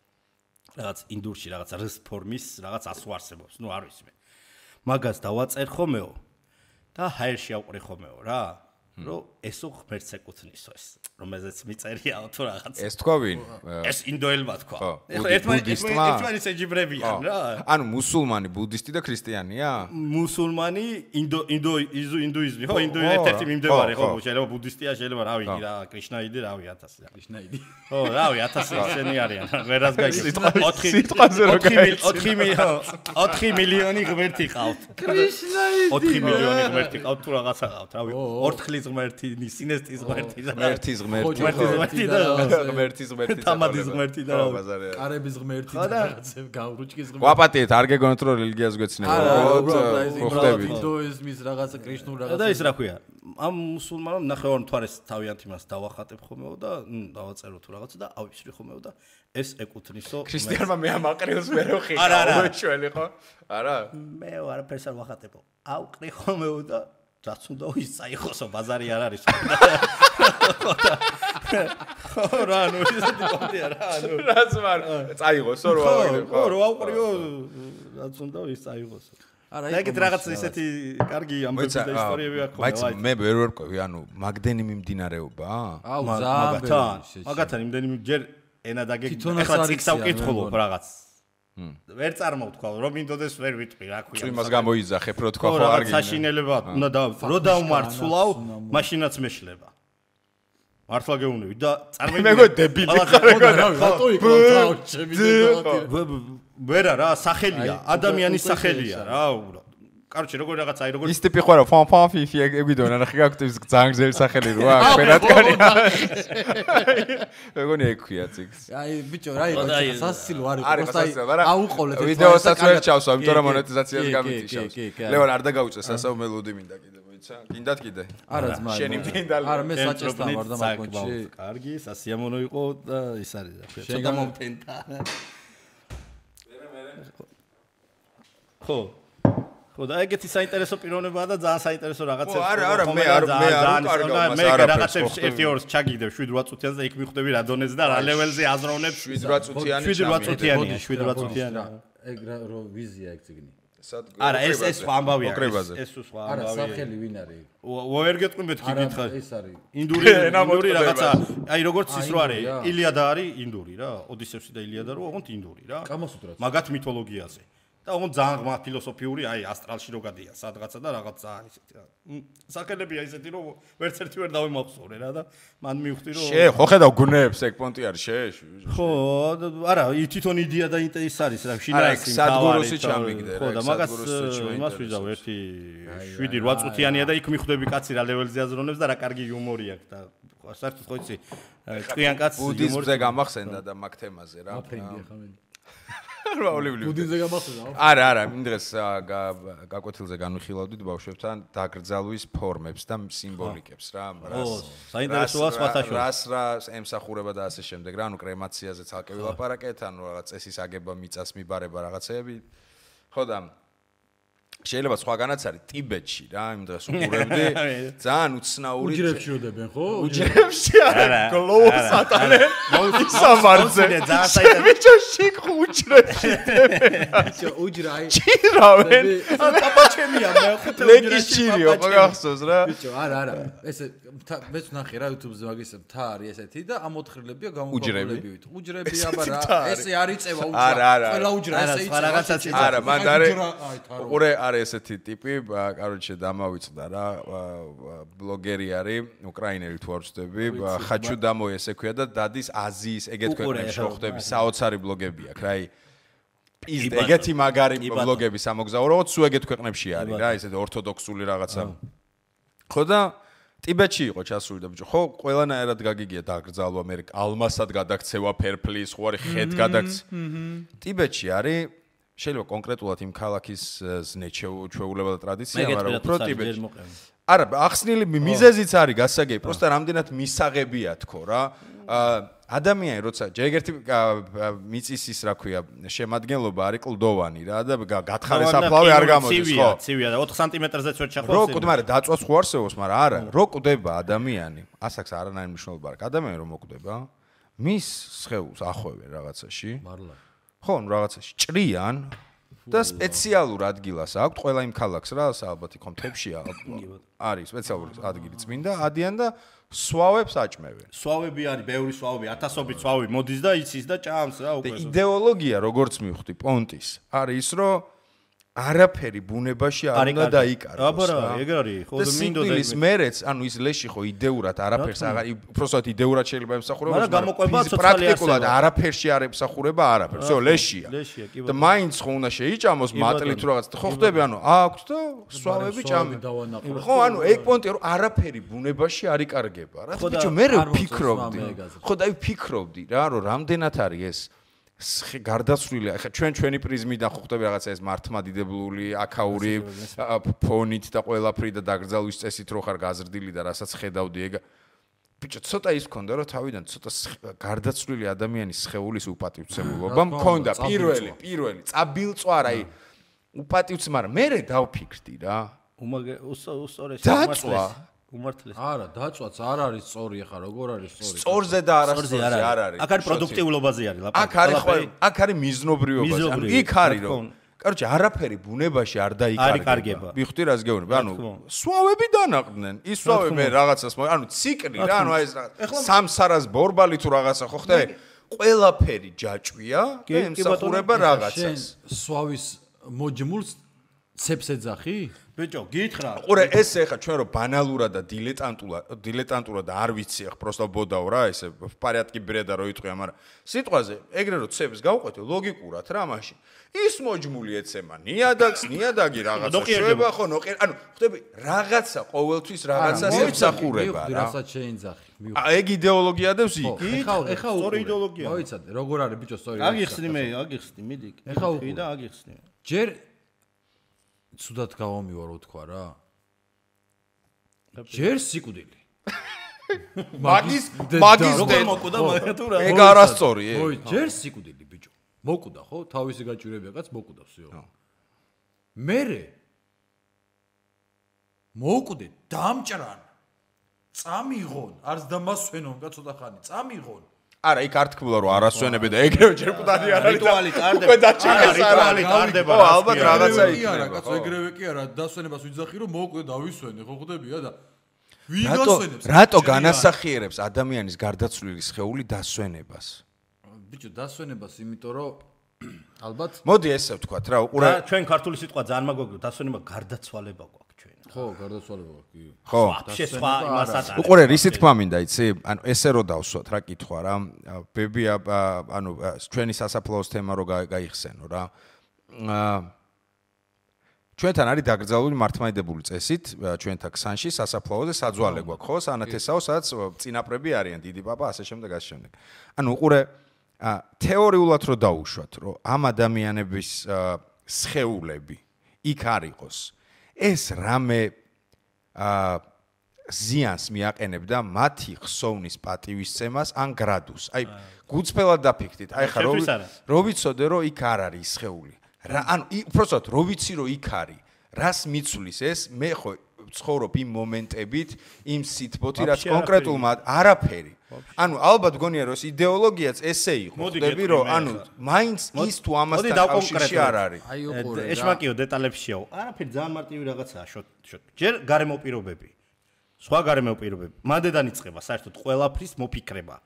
რაღაც ინდურში რაღაც რს ფორმის რაღაც ასო არსებობს ნუ არ ვიცი მე მაგას დავაწერ ხომეო და ჰაერში ავყრი ხომეო რა რომ ესო ღმერთს ეკუთვნისო ეს რომელზეც მიწერია თუ რაღაც. ეს თქვა ვინ? ეს ინდოელმა თქვა. ხო, ერთმანეთს ეჯიბრებიან რა. ანუ მუსულმანი, ბუდისტი და ქრისტიანია? მუსულმანი, ინდუიზმი, ხო, ერთ-ერთი მიმდევარი, ხო, შეიძლება ბუდისტია, შეიძლება რავი, რა, კრიშნაიდი, რავი, 1000 რა. კრიშნაიდი. ხო, რავი, 1000 ისენი არიან. ვერას გაიგებს. სიტყვაზე რო გაიგებს. 4 მილიონი ღმერთი ყავთ. კრიშნაიდი. 4 მილიონი ღმერთი ყავთ თუ რაღაცა ყავთ, რავი, ორთქლის ღმერთი, სინესტის ღმერთი და ღმერთის ღმერთი თამადის ღმერთი და კარების ღმერთი და რაღაცე გავრუჭკის ღმერთი. ვაპატიეთ, არ გეგონოთ რომ რელიგიას გვეცნება. ხო, ხდებით. ინდოიზმის რაღაცა კრიშნულ რაღაცა. და ის რა ქვია? ამ მუსულმანმა ნახევარ მთვარეს თავიანთ იმას დავახატებ ხომეო და დავაწერო თუ რაღაცა და ავიფსრი ხომეო და ეს ეკუთვნისო ქრისტიანმა მე ამ აყრილს მე რო ხიკა უშველი ხო? არა? მე არაფერს არ ვახატებო. ავყრი ხომეო და რაც უნდა ის წაიხოსო ბაზარი არ არის. ხო რა ნუ ისეთი კონტია რა ნუ რაც ვარ წაიღოსო რო ავყრიო ხო რო ავყრიო რაც უნდა ის წაიღოსო. არა ეგეთ რაღაც ისეთი კარგი ამბები და ისტორიები აქვს ხოლმე. მაიც მე ვერ ვერკვევი ანუ მაგდენი მიმდინარეობაა? აუ ზაბერი. მაგათან იმდენი ჯერ ენა დაგეკითხა ახლა ციკსა ვკითხულობ რაღაც. ვერ წარმოვთქვა რომ მინდოდეს ვერ ვიტყვი რა ქვია. წვიმას გამოიძახებ რო თქვა ხო არ გინდა. საშინელება უნდა რო დავმარცვლავ მაშინაც მეშლება. მართლა გეუბნები და წარმოვიდგინე. მეგო დებილი ხარ რა რატო იქ ვერა რა სახელია ადამიანის სახელია რა კაროჩე როგორ რაღაცა აი როგორ ის ტიპი ხო რა ფან ფიფი ეგიდონ არა ხიგაქვთ ის ძალიან გზელი სახელი რო აქვს ფერატკანია მეგონი ეგ ქვია ციკს აი ბიჭო რა იყო სასილო არის პროსტა აუყოლეთ ვიდეოსაც ვერ ჩავსვა იმიტომ რომ მონეტიზაციას გამიწიშავს ლევან არ დაგაუწე სასაუბ მელოდი მინდა კიდე მოიცა გინდათ კიდე არა ძმა შენი მინდა არა მე საჭესთან ვარ და მაგონში კარგი სასიამოვნო იყო და ის არის რა ქვია ცოტა მომფენთა ხო ხო და ეგეთი საინტერესო პიროვნებაა და ძალიან საინტერესო რაღაცებს არა მე არ უკარგავ მას არა რაღაცებს 1-2 ჩაგიგდებ 7-8 წუთიანს და იქ მიხვდები რა დონეზე და რა ლეველზე აზროვნებ 7-8 წუთიანი 7-8 წუთიანი ეგ რო ვიზია ეგ ციგნი არა ეს სხვა ამბავია ეს სხვა ამბავია არა სახელი ვინ არის ვერ გეტყვი მეთქი გითხა ეს არის ინდური რაღაცა აი როგორც ის რო არის ილიადა არის ინდური რა ოდისევსი და ილიადა რო ოღონდ ინდური რა კამასუტრაც მაგათ მითოლოგიაზე და ოღონდ ძალიან ღმა ფილოსოფიური აი ასტრალში რო გადიან სადღაცა და რაღაც ძალიან ისეთი რა სახელებია ისეთი რომ ვერც ერთი ვერ დავიმახსოვრე რა და მან მივხვდი რომ ხო ხედავ გუნეებს ეგ პონტი არის ხო არა თვითონ იდეა და ის არის რა შინაარსი სადგუროსი ჩამიგდე ხო და მაგას იმას ვიზავ ერთი 7-8 წუთიანია და იქ მიხვდები კაცი რა ლეველზე აზროვნებს და რა კარგი იუმორი აქვს და საერთოდ ხო იცი ჭკვიან კაცს ბუდიზმზე გამახსენდა და მაგ თემაზე რა ბუდიზმზე გამახსენდა არა იმ დღეს გაკვეთილზე განვიხილავდით ბავშვებთან დაკრძალვის ფორმებს და სიმბოლიკებს რა საინტერესოა სხვათაშორისო რას ემსახურება და ასე შემდეგ რა ანუ კრემაციაზე ცალკე ვილაპარაკეთ ანუ რაღაც წესის აგება მიწას მიბარება რაღაცეები ხო და შეიძლება სხვაგანაც არის ტიბეტში რა იმ დღეს უყურებდი ძალიან უცნაური უჯრებში როდებენ ხო უჯრებში არა გლოუ სატანე ისამარზე ძალიან საინტერესო უჯრებში უჯრა ჩირავენ პაპაჩემია მე ხუთე ლეგიჩილიო მაგახსოვს რა ბიჭო არა ესე მეც ნახე რა YouTube-ზე მაგის მთა არის ესეთი და ამ ოთხრილებია გამოყოლებივით უჯრები აბა რა ესე არ იწევა უჯრა ყველა უჯრა ესე იწევა რაღაცაც არა მან არის უყურე არის ესეთი ტიპი კაროჩე დამავიწყდა რა ბლოგერი არის უკრაინელი თუ არ ვწდები ხაჩუ დამო ესე ქვია და დადის აზიის ეგეთ ქვეყნებში რო ხდები საოცარი ბლოგები აქვს რა ის ეგეთი მაგარი ბლოგები სამოგზაურო სულ ეგეთ ქვეყნებში არის რა ესეთი ორთოდოქსული რაღაცა ხო და ტიბეტში იყო ჩასული და ბიჭო ხო ყველანაირად გაგიგია დაკრძალვა მე ალმასად გადაქცევა ფერფლის ხო არის ხედ გადაქცევა ტიბეტში არის შეიძლება კონკრეტულად იმ ქალაქის ზნეჩეულება და ტრადიცია მაგრამ უფრო ტიბეტში არა ახსნილი მიზეზიც არის გასაგები პროსტა რამდენად მისაღებია თქო რა ადამიანი როცა ჯერგერთი მიწის ის რა ქვია შემადგენლობა არის კლდოვანი რა და გათხარე საფლავი არ გამოდის ხო ცივია და 4 სანტიმეტრზეც ვერ ჩახვალ რო კვდება მაგრამ დაწვას ხო არსებობს მაგრამ არა რო კვდება ადამიანი ასაკს არანაირი მნიშვნელობა არ აქვს ადამიანი რომ მოკვდება მის სხეულს ახვევენ რაღაცაში მარლა ხო რაღაცაში ჭრიან და სპეციალურ ადგილას აქვს ყველა იმ ქალაქს რა, ალბათ იქ მთებშია არის სპეციალური ადგილი წმინდა, ადიან და სვავებს აჭმევენ. სვავები არის, ბევრი სვავები, ათასობით სვავი მოდის და იცის და ჭამს რა უკვე. იდეოლოგია როგორც მივხვდი პონტის არის ის რომ არაფერი ბუნებაში არ უნდა დაიკარგოს. აბარა, ეგ არის, ხო და მინდოდა ის მერეც, ანუ ის ლეში ხო იდეურად არაფერს აღარ, უბრალოდ იდეურად შეიძლება ემსახურება, მაგრამ გამოყვება ცოცხალი პრაქტიკულად არაფერში არ ემსახურება არაფერს. всё, ლეშია. და მაინც ხო უნდა შეიჭამოს მატლით თუ რაღაც. ხო ხდები, ანუ აქვს და სვავები ჭამი. ხო, ანუ ეგ პონტია რომ არაფერი ბუნებაში არ იკარგება რა. ბიჭო, მე ვფიქრობდი. ხო და ვფიქრობდი რა, რომ რამდენად არის ეს გარდაცვლილი, ახლა ჩვენი პრიზმიდან ხო ხდები რაღაცა ეს მართლმადიდებლური, აქაური ფონით და ყველაფრით და დაგრძალვის წესით რო ხარ გაზრდილი და რასაც ხედავდი ეგ ბიჭო ცოტა ის ქონდა რომ თავიდან ცოტა გარდაცვლილი ადამიანის სხეულის უპატივცემულობა მქონდა პირველი წაბილწვარ აი უპატივცემ მაგრამ მე დავფიქრდი რა უსწორეს უმართლეს. არა, დაწვაც არ არის სწორი ახლა, როგორ არის სწორი? სწორზე და არასწორზე არ არის. აქ არის პროდუქტიულობაზე არის ლაპარაკი. აქ არის მიზნობრიობაზე. ანუ იქ არის რომ კაროჩე არაფერი ბუნებაში არ დაიკარგება. მიხდი რას გეუბნები? ანუ სვავები დანაყდნენ. ის სვავები მე რაღაცას ანუ ციკლი რა, ანუ აი ეს რაღაც სამსარას ბორბალი თუ რაღაცა ხო ხდე? ყველაფერი ჯაჭვია და ემსახურება რაღაცას. სვავის მოჯმულს ცეps ეძახი? ბიჭო, გითხრა. ყურე, ეს ეხა ჩვენ რომ ბანალურად და დილეტანტურად არ ვიცი, ახ პროსტა ბოდაო რა, ესე პარიატკი ბრედა რო იტყვია, მაგრამ სიტყვაზე ეგრე რომ ცეps გავყვეთო ლოგიკურად რა მაშინ. ის მოჯმული ეცემა ნიადაგს, ნიადაგი რაღაცა შვება ხო, ანუ ხდები რაღაცა ყოველთვის რაღაცას ემსახურება რა. რასაც შეინძახი. ეგ იდეოლოგიადებს იქ. ეხა სწორი იდეოლოგია. მოიცადე, როგორ არის ბიჭო სწორი. აგიხსნი, მიდი. ეხა უყი და აგიხსნი. ჯერ ცუდად გავამივარ უთქვა რა. ჯერ სიკვდილი. მაგის როგორ მოკვდა მაგა თუ რა. ეგ არასწორი. ჯერ სიკვდილი ბიჭო. მოკვდა ხო? თავისი გაჭირებია კაც მოკვდა всё. მერე მოკვდე დამჭრან. წამიღონ, არც დამასვენონ კაცოთა ხანი, წამიღონ. არა, იქ არ თქმულა რომ არასვენები და ეგრევე ჯერ მკვდარი არ არის. რიტუალი ტარდება. უკვე დაჭირეს რიტუალი ტარდება. ხო, ალბათ რაღაცა იქნება. კაცო, ეგრევე კი არა, დასვენებას ვიძახი რომ მოკვდე დავისვენე, ხო ხდებია და ვიგასვენებს. რატო განასახიერებს ადამიანის გარდაცვლილი სხეული დასვენებას? ბიჭო, დასვენებას იმიტომ რომ ალბათ მოდი ესე ვთქვათ რა, უყურე. ჩვენ ქართული სიტყვა ძალიან მაგვიგო, დასვენება გარდაცვალება გვაქვს. ხო, გარდაცვალება კი. ხო. შესხვა იმასაც არის. უყურე, რისი თქვა მინდა, იცი? ანუ ესე რო დავსვათ რა კითხვა რა. ბები ანუ ჩვენი სასაფლაოს თემა რო გაიხსენო რა. ჩვენთან არის დაკრძალული მართლმადიდებლური წესით, ჩვენთან ქსანში სასაფლაოზე საძვალე გვაქვს, ხო? სანათესაო, სადაც წინაპრები არიან, დიდი პაპა, ასე შემდეგ, ასე შემდეგ. ანუ უყურე, თეორიულად რო დაუშვათ, რომ ამ ადამიანების სხეულები იქ არ იყოს. ეს რამე ზიანს მიაყენებდა მათი ხსოვნის პატივისცემას ან გრადუს. აი, გუწფელად დაფიქრდით. აი ხა რო ვიცოდე რომ იქ არ არის სხეული. რა ანუ უბრალოდ რო ვიცი რომ იქ არის. რას მიცვლის ეს? მე ხო ცხოვრობ იმ მომენტებით, იმ სიტბოთი, რაც კონკრეტულმა არაფერი. ანუ ალბათ გონია რომ ეს იდეოლოგიაც ესე იყო. ხდები რომ ანუ მაინც ის თუ ამასთან კავშირში არ არის. აი უყურე. ეშმაკიო დეტალებში შეაო. არაფერი ძალიან მარტივი რაღაცაა შოთ. ჯერ გარემო პირობები. სხვა გარემო პირობები. მანდედან იწყება საერთოდ ყველაფრის მოფიქრება.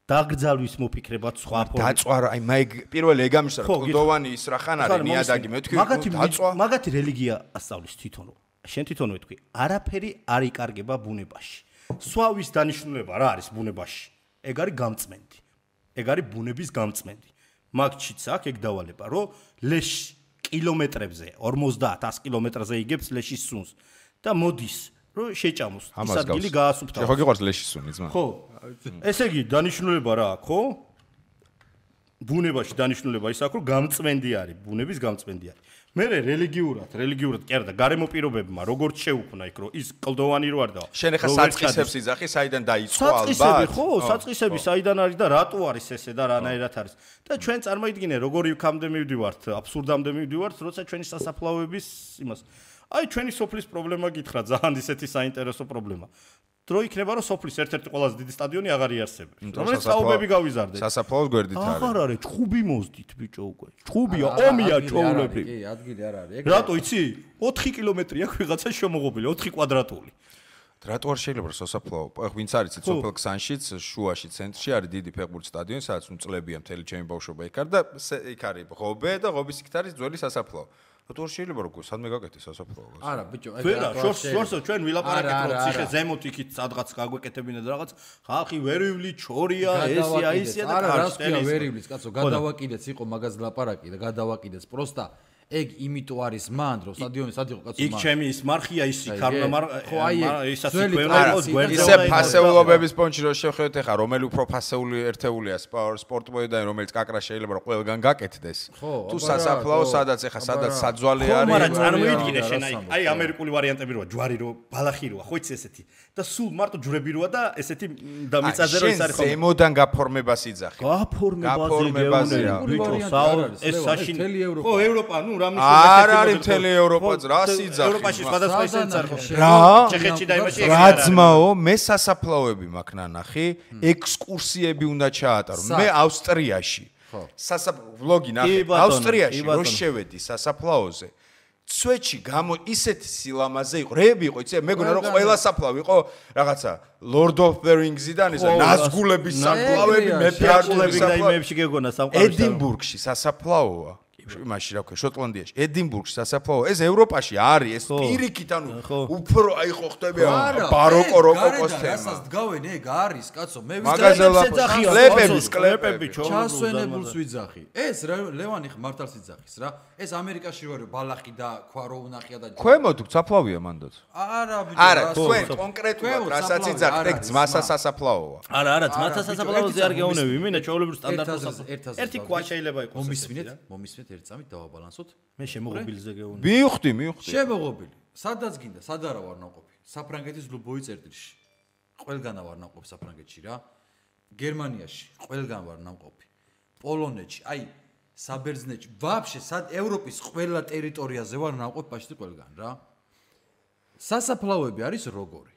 დაგრძალვის მოფიქრებად სხვა ფორმით. დაწვა აი მაგ პირველი ეგ ამისარ კლდოვანი ის რა ხან არის ნიადაგი მე თქვი დაწვა. მაგათი რელიგია ასწავლის თვითონ. შენ თვითონ ვეთქვი, არაფერი არ იკარგება ბუნებაში. სვავის დანიშნულება რა არის ბუნებაში? ეგ არის გამწმენდი. ეგ არის ბუნების გამწმენდი. მაგჩიც აქ ეგ დავალება, რომ ლეში კილომეტრებზე 50-100 კილომეტრზე იგებს ლეშის სუნს და მოდის, რომ შეჭამოს. ის ადგილი გაასუფთავოს. ხო გიყვარს ლეშის სუნი ძმა? ხო. ესე იგი დანიშნულება რა აქვს, ხო? ბუნებაში დანიშნულება ის აქვს, რომ გამწმენდი არის, ბუნების გამწმენდი არის. მე რელიგიურად კი არა და გარემო პირობებმა როგორც შეუქმნა იქ რომ ის კლდოვანი რო არ და შენ ახლა საწყისებს იძახი საიდან დაიწყო ალბათ საწყისები ხო საწყისები საიდან არის და რატო არის ესე და რანაირად არის და ჩვენ წარმოიდგინე როგორი იქამდე მივდივართ აბსურდამდე მივდივართ როცა ჩვენი სასაფლაოების იმას აი ჩვენი სოფლის პრობლემა გითხრა ძალიან ისეთი საინტერესო პრობლემა დრო იქნება რომ სოფლის ერთ-ერთი ყველაზე დიდი სტადიონი აღარ იარსებებს. რომელიც საუბები გავიზარდეთ. სასაფლაოს გვერდით არის. აღარ არის, ჭუბი მოздით ბიჭო უკვე. ჭუბია, ომია ჩოულები. კი, ადგილი არ არის. რატო იცი? 4 კილომეტრი აქვს ვიღაცა შემოღობილი, 4 კვადრატული. რატო არ შეიძლება სასაფლაო? ვინც არის სოფელ ქსანშიც, შუაში ცენტრში არის დიდი ფეხბურთის სტადიონი, სადაც წლებია მთელი ჩემი ბავშვობა იქ არის და იქ არის ღობე და ღობის იქ არის ძველი სასაფლაო. რატო არ შეიძლება როგორ სადმე გაკეთეს სასაფლაო? არა, ბიჭო, ვერა, შორს ჩვენ ვილაპარაკეთ რომ ციხე ზემოთ იქით სადღაც გაგვეკეთებინა და რაღაც ხალხი ვერიული ჩორია, ესია, ისია და კარსკია ვერივლის კაცო, გადავაკიდეც იყო მაგას ლაპარაკი და გადავაკიდეც პროსტა ეგ იმიტომ არის მან რომ სტადიონი სად იყო კაცო იქ ჩემი ის მარხია ის იქარნა ხო აი ისაც გვერდს ისე ფასეულობების პონჩი რო შევხედეთ ახლა რომელი უფრო ფასეული ერთეულია სპორტ მოედანი რომელიც კაკრა შეიძლება რომ ყველგან გაკეთდეს თუ სასაფლაო სადაც ახლა სადაც საძვალე არის ხო მაგრამ წარმოიდგინე შენ აი ამერიკული ვარიანტები როა ჯვარი რო ბალახი როა ხო იცი ესეთი და სულ მარტო ჯვრები როა და ესეთი და მიწაზე რო ის არის ხო ზემოდან გაფორმებას იძახი გაფორმებაზე ბიჭო ეს საშინელი ხო ევროპა ნუ არ არის მთელი ევროპაც რა სიძახი ევროპაში სხვადასხვა ისიც არის რა ჩეხეთში და იმაში რა ძმაო მე სასაფლაოები მაქვს ნანახი ექსკურსიები უნდა ჩაატარო მე ავსტრიაში ვლოგი ნახე ავსტრიაში რო შევედი სასაფლაოზე სვეჩი გამო ისეთი სილამაზე იყო რეები იყო იცი მეგონა რომ ყველა საფლავი იყო რაღაცა Lord of the Rings-დან ისა ნაზგულების საფლავები მეფეარგულების და იმებში გეგონა სამყაროში ედინბურგში სასაფლაოა იმაში რა ქვია შოტლანდიაში ედინბურგში სასაფლაო ეს ევროპაში არის ეს პირიქით ანუ უფრო აი ხო ხდები ბაროკო როკოკოს თემა რასაც დგავენ ეგ არის კაცო მე კლეპები ჩასვენებულს ვიძახი ეს ლევანი მართალს იძახის რა ეს ამერიკაში რო ბალახი და ქვარო უნახია და ქვემოთ საფლავია მანდაც არა თქვენ კონკრეტულად რასაც იძახთ ეგ ძმასა სასაფლაოა არა ძმასა სასაფლაოზე არ გეუნები მინა ჩაოლებრივ სტანდარტს ერთი ქვა შეიძლება იყოს მომისმენთ ერთ წამით დავაბალანსოთ. მე შემოღობილზე გეუნები. მივხვდი. შემოღობილი. სადაც გინდა, სად არა ვარ ნაყოფი. საფრანგეთის ლუბოი წერტილში. ყველგან ვარ ნაყოფი საფრანგეთში რა. გერმანიაში ყველგან ვარ ნაყოფი. პოლონეთში, აი საბერძნეთში, ვაფშე სად ევროპის ყველა ტერიტორიაზე ვარ ნაყოფი პაშტი ყველგან რა. სასაფლაოები არის როგორი?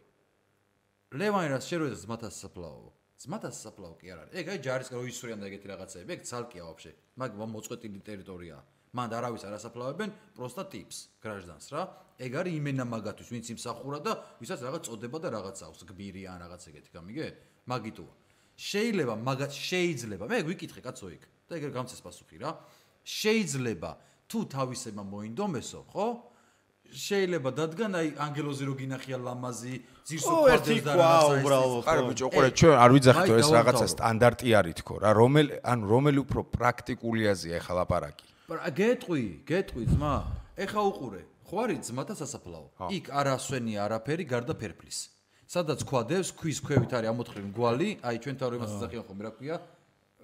ლევანი რას შეერვედა ძმათა სასაფლაო. ძმათა სასაფლაო კი არ არის. ეგ აი ჯარისკენ რო ისვრიან და ეგეთი რაღაცები, ეგ ცალკეა ვაფშე. მაგ მოწყვეტილი ტერიტორიაა. მანდ არავის არ ასაფლავებენ, პროსტა ტიპს, გრაჟდანს რა. ეგ არის იმენა მაგათვის, ვინც იმსახურა და ვისაც რაღაც წოდება და რაღაც აქვს, გბირი ან რაღაც ეგეთი, გამიგე? მაგიტოა. შეიძლება მაგათ შეიძლება. მე ვიკითხე კაცო იქ და ეგ გამცეს პასუხი რა. შეიძლება თუ თავისებმა მოინდომესო, ხო? შეიძლება დადგან აი ანგელოზი რო გინახია ლამაზი ძირსო ერთი ქვა უბრალოდ არა ბიჭო ყურე ჩვენ არ ვიძახით ეს რაღაცა სტანდარტი არის თქო რა რომელი უფრო პრაქტიკულიაზეა ეხლა ლაპარაკი გეტყვი ძმა ეხა უყურე ხო არის ძმათა სასაფლაო იქ არ ასვენია არაფერი გარდა ფერფლის სადაც ქვადებს ქვის ქვევით არის ამოთხრილი მგვალი აი ჩვენ თავრებას იძახიან ხოლმე რა ქვია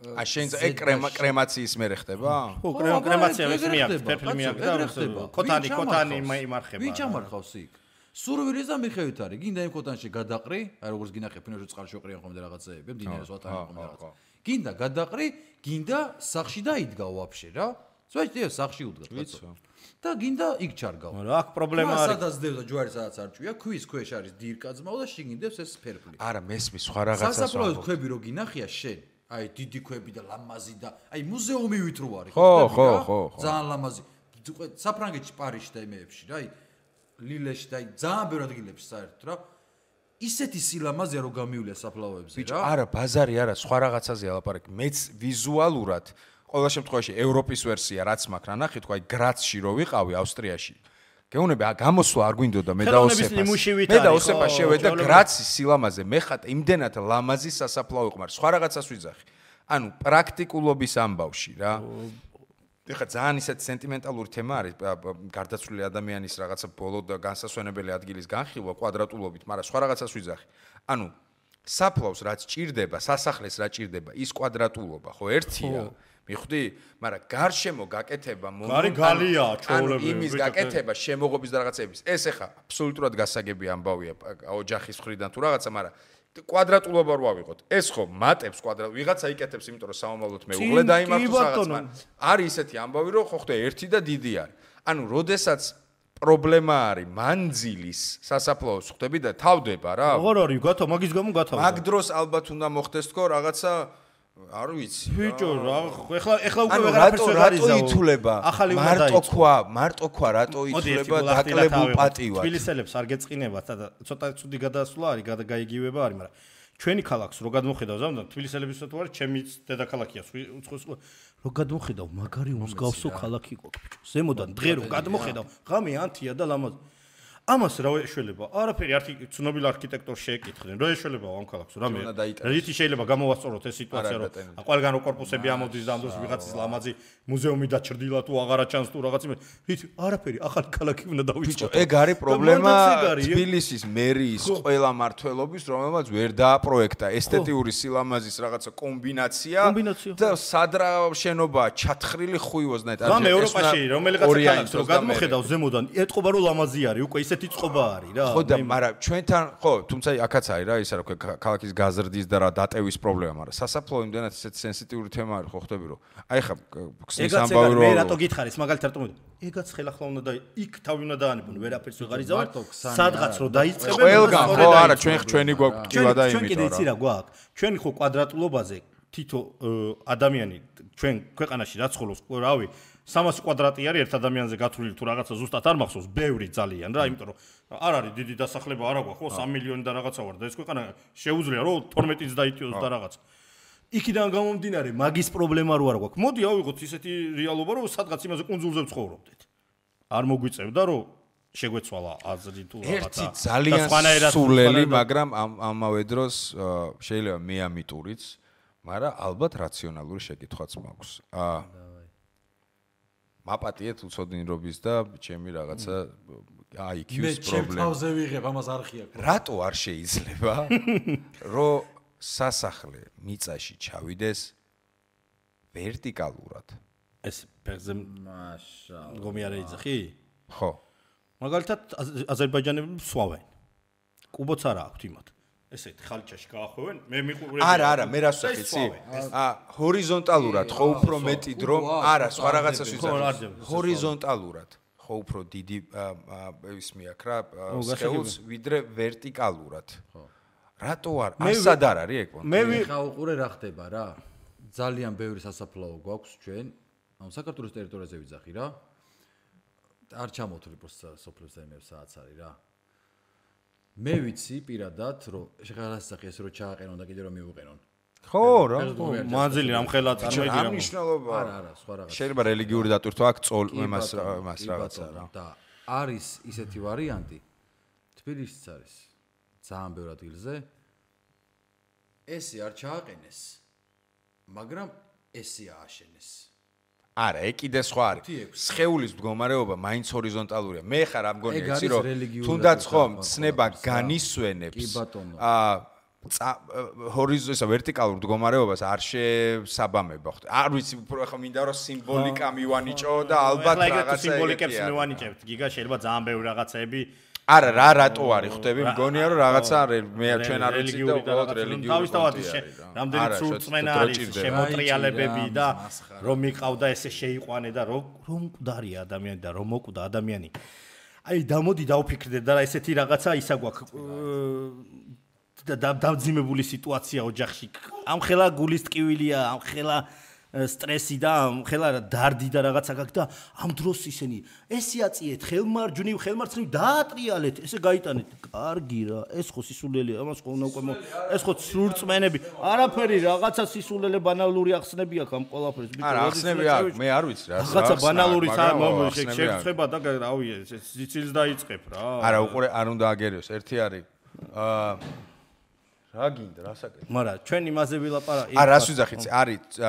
შენ ეგ კრემაციის მერე ხდება? ხო, კრემაცია ეს მიაქვს, ფერფლი მიაქვს და ქოთანი იმარხება. ვინ ჩამარხავს იქ? სურვილის და მიხევით არის. გინდა იმ ქოთანში გადაყრი, აი როგორც გინახე ფინოში წყალში ოყრიან ხოლმე რაღაცეები, მდინარეს ვატარებენ ხოლმე რაღაცა. გინდა გადაყრი, გინდა სახში დაიდგა ვაფშე რა. ზოგადად სახში უდგა კაცო. და გინდა იქ ჩარგავ. რა აქ პრობლემა არის. სადაც დევდა ჯვარი სადაც არ ჭვია, ქვის ქვეშ არის დირკაძმაო და შიგნით ეს ფერფლი. არა, მესმის სხვა რაღაცას. სასაფლაოს ქვები რო გინახია შენ აი დიდი ქვები და ლამაზი და აი მუზეუმივით რო არის ხო ძალიან ლამაზი საფრანგეთში პარიზში და იმეებში რა აი ლილეში და აი ძალიან ბევრ ადგილებში საერთოდ რა ისეთი სილამაზეა რო გამივლია საფლავოებზე რა ბიჭო არა ბაზარი არა სხვა რაღაცაზეა ლაპარაკი მეც ვიზუალურად ყოველ შემთხვევაში ევროპის ვერსია რაც მაქვს რა ნახე თქვა აი გრაცში რო ვიყავი ავსტრიაში გეუნები გამოსვლა არ გვინდოდა მე და ოსეფა შევედა გრაცის სილამაზე მე ხატ იმდენად ლამაზი სასაფლაო იყო მაგრამ სხვა რაღაცას ვიძახი ანუ პრაქტიკულობის ამბავში რა ეხლა ძალიან ისეთი სენტიმენტალური თემა არის გარდაცვლილი ადამიანის რაღაცა ბოლო და განსასვენებელი ადგილის განხილვა კვადრატულობით მაგრამ სხვა რაღაცას ვიძახი ანუ საფლავს რაც ჭირდება სასახლეს რა ჭირდება ის კვადრატულობა ხო ერთია მიხვდი? მაგრამ გარშემო გაკეთება გალია ჩოულები იმის გაკეთება შემოღობის და რაღაცების ეს ახლა აბსოლუტურად გასაგები ამბავია ოჯახის მხრიდან თუ რაღაცა მაგრამ კვადრატულობა რო ავიღოთ ეს ხო მატებს კვადრატ ვიღაცა იკეთებს იმიტომ რომ სამომავლოდ მეუღლე დაიმართოს რაღაცა არის ისეთი ამბავი რომ ხო ხდება ერთი და დიდი არის ანუ როდესაც პრობლემა არის მანძილის სასაფლაოს ხვდები და თავდება რა. როგორ არის გათო მაგის გამო გათავდა. მაგ დროს ალბათ უნდა მოხდეს თქო რაღაცა არ ვიცი. ბიჭო ეხლა უკვე ვეღარაფერს ვერ არის რატო ითულება? მარტო ქვა რატო ითულება დაკლებულ პატივად? თბილისელებს არ გეწყინებათ და ცოტა ცუდი გადასვლა არის, გაიგივება არის, მაგრამ ჩვენი ქალაქს რო გადმოხედავ ზამთარ თბილისელებისთვის თუ არის ჩემი დედაქალაქია უცხოს რო გადმოხედავ მაგარი მსგავსო ქალაქი გვაქვს ბიჭო ზემოდან დღე რო გადმოხედავ ღამე ანთია და ლამაზ ამას რა ეშველება არაფერი არქი ცნობილ არქიტექტორს შეეკითხნენ რა ეშველება ამ ქალაქს რამე რითი შეიძლება გამოვასწოროთ ეს სიტუაცია რომ ყველგან რო კორპუსები ამოდის და ამ დროს ვიღაცის ლამაზი მუზეუმი დაჩრდილა თუ აღარა ჩანს თუ რაღაც რითი არაფერი ახალი ქალაქი უნდა დავიწყოთ ბიჭო ეგ არის პრობლემა თბილისის მერიის ყველა მართველობის რომელმაც ვერ დააპროექტა ესთეტიური სილამაზის რაღაცა კომბინაცია და სადრა შენობა ჩათხრილი ხუიოზნაირად რამე ევროპაში რომელიღაც ქალაქს რო გადმოხედავ ზემოდან ეტყობა რომ ლამაზი არის უკვე ესეთი წყობა არის რა. ხო და მაგრამ ჩვენთან ხო, თუმცა აქაც არის რა, ისა რა ქვია ქალაქის გაზრდის და რა დატევის პრობლემა, მაგრამ სასაფლაო იმდანაც ესეთი სენსიტიური თემა არის, ხო ხვდები რომ. აი ხა ქსნის ამბავი რომ მე რატო გითხარის მაგალითად რატომ ეგაც ხელახლა უნდა და იქ თავი უნდა დაანებონ, ვერაფერს ვეღარ იზავარ. სადღაც რო დაიწყებენ ყველგან ხო არა, ჩვენი გვაქვს ტივა და იმით რა. ჩვენ კიდე იცი რა გვაქვს. ჩვენი ხო კვადრატულობაზე თითო ადამიანი ჩვენ ქვეყანაში რა ცხოვრობს, რავი 300 კვადრატი არის ერთ ადამიანზე გათვლილი თუ რაღაცა ზუსტად არ მახსოვს, ბევრი ძალიან რა, იმიტომ რომ არ არის დიდი დასახლება არა გვაქვს, ხო 3 მილიონი და რაღაცა ვარ და ეს ქვეყანა შეუძლია რომ 12-იც დაიწიოს და რაღაც. იქიდან გამომდინარე მაგის პრობლემა რო არ გვაქვს. მოდი ავიღოთ ისეთი რეალობა რომ სადღაც იმაზე კუნძულზე ვცხოვრობდეთ. არ მოგვიწევდა რომ შეგვეცვალა აზრი თუ ერთი რაღაცა. ძალიან სულელი, მაგრამ ამავე დროს შეიძლება მე ამიტურიც, მაგრამ ალბათ რაციონალური შეკითხვაც მაქვს. მაპატიეთ უცოდინრობის და ჩემი რაღაცა IQ-ს პრობლემა. მე ჩემ თავზე ვიღებ, ამას არხია. რატო არ შეიძლება რომ სასახლე მიწაში ჩავიდეს ვერტიკალურად? ეს ფეხზე მაშაალლა. გომი არ ეძახი? ხო. მაგალითად აზერბაიჯანელები სვავენ. კუბოც არა აქვთ იმათ. ესეთ ხალჩაში გაახვევენ, მე მიყურებ. არა, მე რას ვახი, იცი? ჰორიზონტალურად ხო უფრო მეტი დრო, არა, სხვა რაღაცას ვიზახი. ჰორიზონტალურად ხო უფრო დიდი ის მიაქვს რა, სხეულს ვიდრე ვერტიკალურად. ხო. რატო არ? ასად არ არის ეგ? მე ხა უყურე რა ხდება რა. ძალიან ბევრი სასაფლაო გვაქვს ჩვენ, ანუ საქართველოს ტერიტორიაზე ვიძახი რა. არ ჩამოთვლი პროსტა სოფლებს და იმებს საათს არის რა. მე ვიცი პირადად რომ შეღარასახი ეს რომ ჩააყენონ და კიდე რომ მიუყენონ. ხო რა, მანძილი ამ ხელა წარმოიდგინე. ამ მნიშვნელობა. არა, სხვა რაღაც. შეიძლება რელიგიური დატვირთვა აქ წოლ იმას რაღაცა რა. და არის ისეთი ვარიანტი. თბილისიც არის ძალიან ბევრ ადგილზე. ესე არ ჩააყენეს. მაგრამ ესე ააშენეს. არა, ეგ კიდე სხვა არის. სხეულის მდგომარეობა მაინც ჰორიზონტალურია. მე ხარ ამ გონია იცი რომ თუნდაც ხომ ცნება განისვენებს ჰორიზონტალურ ვერტიკალურ მდგომარეობას არ შესაბამება ხო? არ ვიცი, უფრო ახლა მინდა რომ სიმბოლიკა მივანიჭო და ალბათ რაღაცა სიმბოლიკებს მივანიჭებთ. გიგა შეიძლება ძალიან ბევრი რაღაცები არა რა რატო არის ხვდები მგონია რომ რაღაცა მე ჩვენ არ ვიცი და უბრალოდ რელიგიური თავისთავად რამდენი სულწმენა არის შემოტრიალებები და რომ მიყავდა ესე შეიყვანე და რომ მკვდარია ადამიანი და რომ მოკვდა ადამიანი აი დამოდი დავფიქრდე და ესეთი რაღაცა ისა გვაქვს დავძიმებული სიტუაცია ოჯახში ამ ხელა გულის ტკივილია ამ ხელა სტრესი და ხელა დარდი და რაღაცა გაქვს და ამ დროს ისინი ესე აწიეთ ხელმარჯვნივ დაატრიალეთ ესე გაიტანეთ კარგი რა ეს ხო სისულელია ამას ხო უნდა უკვე ეს ხო სრულწმენები არაფერი რაღაცა სისულელე ბანალური ახსნები აქვს ამ ყველაფერს არა ახსნები აქვს მე არ ვიცი რა რაღაცა ბანალური შეგვწება და რავი სიცილს დაიწყებ რა არა უყურე არ უნდა აგერიოს ერთი არის რა გინდა რასაკეთე მაგრამ ჩვენ იმაზე ვილაპარაკეთ არა რას ვიძახით არის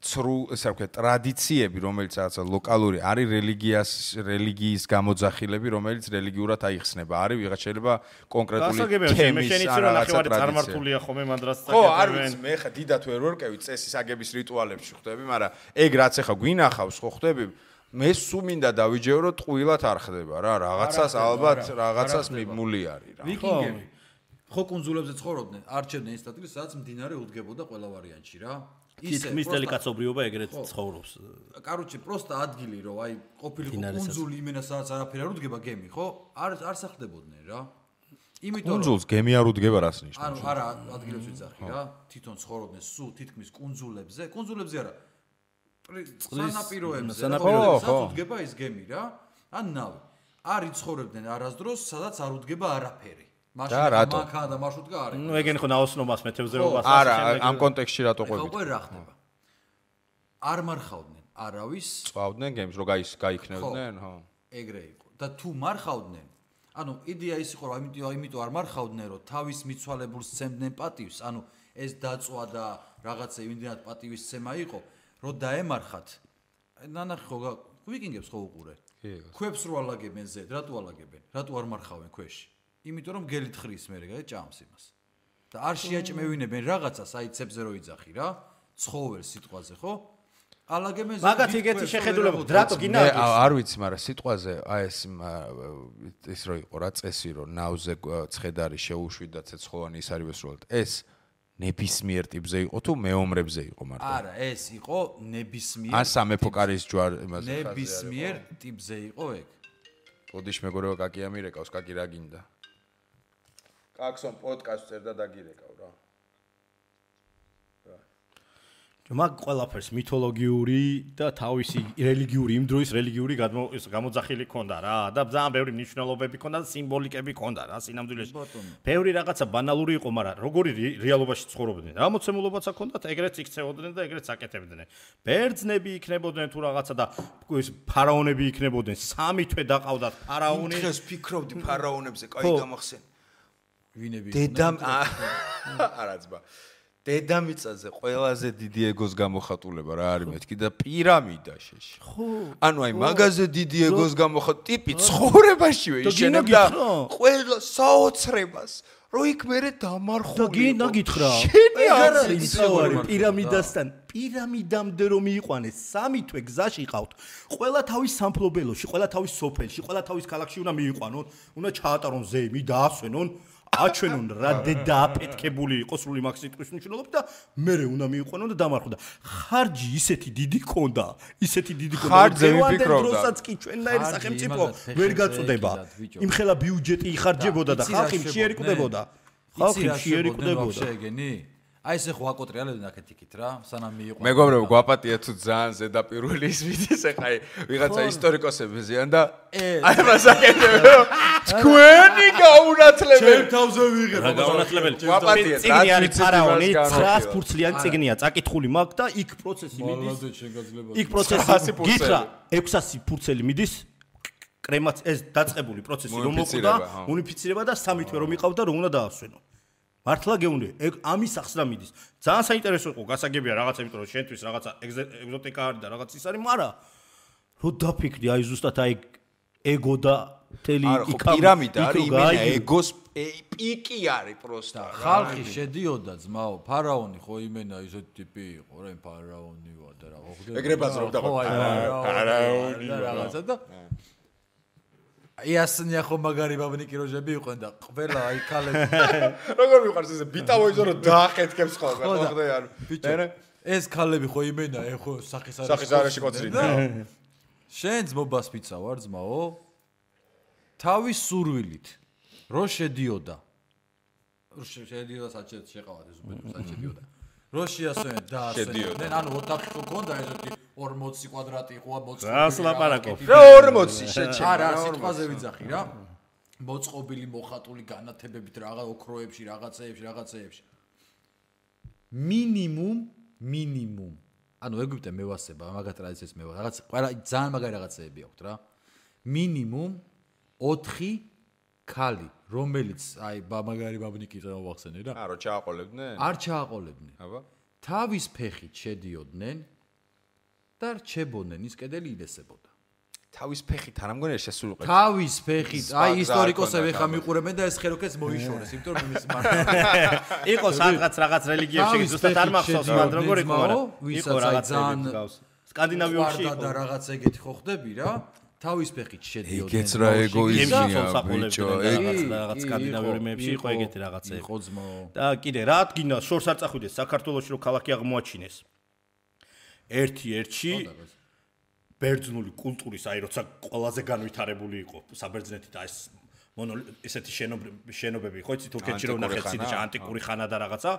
ცრუ ესე ვქეთ ტრადიციები რომელიც რაღაცა ლოკალური არის რელიგიის გამოძახილები რომელიც რელიგიურად აიხსნება არის ვიღაც შეიძლება კონკრეტული თემის რაღაცა წარმართულია ხოლმე მანდრას ხო არ ვიცი მე ხა დიდათ ვერ ვერკევი წესის აგების რიტუალებში ხვდები მაგრამ ეგ რაც ახლა გვინახავს ხო ხვდები მე სულ მინდა დავიჯერო რომ ტყუილად არ ხდება რა რაღაცას ალბათ რაღაცას მიმული არის რა ვიკინგები ხო კუნძულებზე ცხოვრობდნენ არჩევდნენ ის ადგილს სადაც მდინარე უდგებოდა ყველა ვარიანტში რა თითქმის დელიკაცობრიობა ეგრეთ ცხოვრობს. Короче, просто ადგილი რომ აი ყოფილიყო კუნძული იმენა სადაც არაფერი არ უდგება გემი, ხო? არ სახდებოდნენ რა. იმიტომ კუნძულს გემი არ უდგება რას ნიშნავს? ანუ არა ადგილებს ვიცახი რა. თვითონ ცხოვრობდნენ სულ თითქმის კუნძულებზე არა. სანაპიროებზე უდგება ის გემი რა. ან ნავი. არ იცხოვრებდნენ არასდროს, სადაც არ უდგება არაფერი. მანქანა და მარშრუტკა არის. ნუ ეგენი ხო ნაოსნობას მეთევზეობას არა, ამ კონტექსტში რატო ყვებით? ხო, რა ხდება? არ მარხავდნენ არავის. წვავდნენ გემს, რომ გაიქნევდნენ, ხო. ეგრე იყო. და თუ მარხავდნენ, ანუ იდეა ის იყო, რომ იმიტომ არ მარხავდნენ, რომ თავის მიცვალებულს სცემდნენ პატივს, ანუ ეს დაწვა და რაღაცა იმდენად პატივისცემა იყო, რომ დაემარხათ. ნანახი ხო ვიკინგებს ხო უყურე? ქვებს რო ალაგებენ ზედ, რატო ალაგებენ? რატო არ მარხავენ ქვეში? იმიტომ რომ გელით ხრის მე რეგა ჭამს იმას. და არ შეაჭმევინებენ რაღაცას, აი ცებზე რო იძახი რა, ცხოველ სიტყვაზე, ხო? ალაგებენ ზედ. მაგათ იგეთი შეხედულება, რატო გინდა? არ ვიცი, მაგრამ სიტყვაზე აი ეს რო იყო რა წესი, რომ ნავზე ცხედარი შეუშვიდათ ცეცხლოვანი ის არის ვესროლად. ეს ნებისმიერ ტიპზე იყო თუ მეომრებზე იყო მარტო? არა, ეს იყო ნებისმიერ. ან სამეფო კარის ჯვარ იმაზე. ნებისმიერ ტიპზე იყო ეგ. პოდიშ მეგობრებო, კაკი ამირეკავს, კაკი რა გინდა? კაკსონ პოდკასტს წერდა დაგირეკავ რა. მაგ ყველაფერს მითოლოგიური და თავისი რელიგიური იმ დროის რელიგიური გამოძახილი ქონდა რა და ძალიან ბევრი მნიშვნელობები ქონდა და სიმბოლიკები ქონდა რა სინამდვილეში. ბევრი რაღაცა ბანალური იყო, მაგრამ როგორი რეალობაში ცხოვრობდნენ. რა მოცემულობაც აქონდათ, ეგრეც იქცეოდნენ და ეგრეც აკეთებდნენ. ბერძნები იქნებოდნენ თუ რაღაცა და ეს ფარაონები იქნებოდნენ. სამი თვე დაყავდათ ფარაონი. დღეს ფიქრობდი ფარაონებზე, კაი გამახსენ. ვინები? დედამ არაცბა. დედამიწაზე ყველაზე დიდი ეგოს გამოხატულება რა არის მეთქი და პირამიდა შეში. ხო. ანუ აი მაგაზე დიდი ეგოს გამოხატ ტიპი ცხოვრებაშივე იშენებდა ყველა საოცრებას. რო იქ მერე დამარხული. და გითხრა. ეგ არის პირამიდასთან. პირამიდამდე რომ მიიყვანეს, სამი თვე გზაში ყავთ. ყველა თავის სამფლობელოში, ყველა თავის სოფელში, ყველა თავის ქალაქში უნდა მიიყვანონ, უნდა ჩაატარონ ზეიმი, დაასვენონ. აჩვენონ რა დააფეთქებული იყო სრული მაგ სიტყვის მნიშვნელობით და მერე უნდა მიიყვანონ და დამარხო და ხარჯი ისეთი დიდი ქონდა ხარჯზე ვიფიქრობდა დროსაც კი ჩვენნაირი სახელმწიფო ვერ გაწუდება იმხელა ბიუჯეტი იხარჯებოდა და ხალხი მშიერიკდებოდა შეგენი აი ესე ხო აკოტრიალებდნენ აქეთ-იქით რა სანამ მიიყვანა მეგობრებო გვაპატია თუ ძალიან ზედაპირველი ის ვიდის ეხა ვიღაცა ისტორიკოსები ზიან და აი მას აკეთებენ თქვენი გაუნათლებელი ჩემ თავზე ვიღებ რა გაუნათლებელი გვაპატია წიგნი არის ფარაონი 900 ფურცლიანი წიგნია წაკითხული მაგ და იქ პროცესი მიდის იქ პროცესი გითხრა 600 ფურცელი მიდის კრემაც ეს დაწყებული პროცესი რომ მოკვდა უნიფიცირება და 3 თვე რომ იყავდა რომ უნდა დაასვენო მართლა გეუნე ამის ახს რა მიდის ძალიან საინტერესო იყო გასაგებია რაღაცა იმიტომ რომ შენთვის რაღაცა ეგზოტიკა არის და რაღაც ის არის მაგრამ რო დაფიქრი აი ზუსტად აი ეგო და თელი იქა პირამიდა არის იმენა ეგოს პიკი არის პროსტა ხალხი შედიოდა ძმაო ფარაონი ხო იმენა ისეთი ტიპი იყო რა ფარაონი ვარ და რა ხო ეგრე ბაზრობდა ფარაონი და რაღაცა და იასნია ხო მაგარი ბაბნიკი როჟები იყვნენ და ყველა აი ქალები როგორ მიყვარს ესე ბიტავოიზო რომ დაახეთქებს ხოლმე ხო ხდე არ ბიჭო ეს ქალები ხო იმენა ეხო სახის არეში კოცრინა შენ ძმობას ფიცა ვარ ძმაო თავის სურვილით რო შედიოდა საჭეთ შეყავად ეს უბრალოდ საჭედიოდა რო შეასვენენ და ასვენენ ანუ ოთახი ხო ქონდა ესეთი 40 კვადრატი იყო რას ლაპარაკობ რა 40 შეჭე არა სიტყვაზე ვიძახი რა მოწყობილი მოხატული განათებებით რაღაც ოქროებში რაღაცეებში მინიმუმ ანუ ეგვიპტე მევასება მაგათ ტრადიციებს მევა რაღაც ყველა ძალიან მაგარი რაღაცეები აქვთ რა მინიმუმ 4 ქალი რომელიც აი მაგარი ბაბნიკი წამოვახსენე რა არა ჩააყოლებდნენ არ ჩააყოლებდნენ აბა თავის ფეხით შედიოდნენ და რჩებოდნენ ის კედელი ილესებოდა თავის ფეხით არ ამგონია შესულიყო თავის ფეხით აი ისტორიკოსები ხა მიყურებენ და ეს ხელოქეს მოიშორეს იმიტომ რომ იმის იყო სადღაც რაღაც რელიგიებში ზუსტად არ მახსოვს მაგრამ როგორ იყო მაგრამ იყო რაღაც სკანდინავიაში და რაღაც ეგეთი ხო ხდები რა თავის ფეხით შედიოდნენ ეგეც რა ეგოიზმია ბიჭო რაღაც სკანდინავიური მეებში იყო ეგეთი რაღაცები იყო ძმო და კიდე რა გინდა შორს არ წახვიდეს საქართველოში რომ ქალაქი აღმოაჩინეს ერთ-ერთი ბერძნული კულტურის, აი როცა ყველაზე განვითარებული იყო საბერძნეთი და ეს ესეთი შენობები ხო იცი თურქეთში რომ ნახეთ სიდიში ანტიკური ხანა და რაღაცა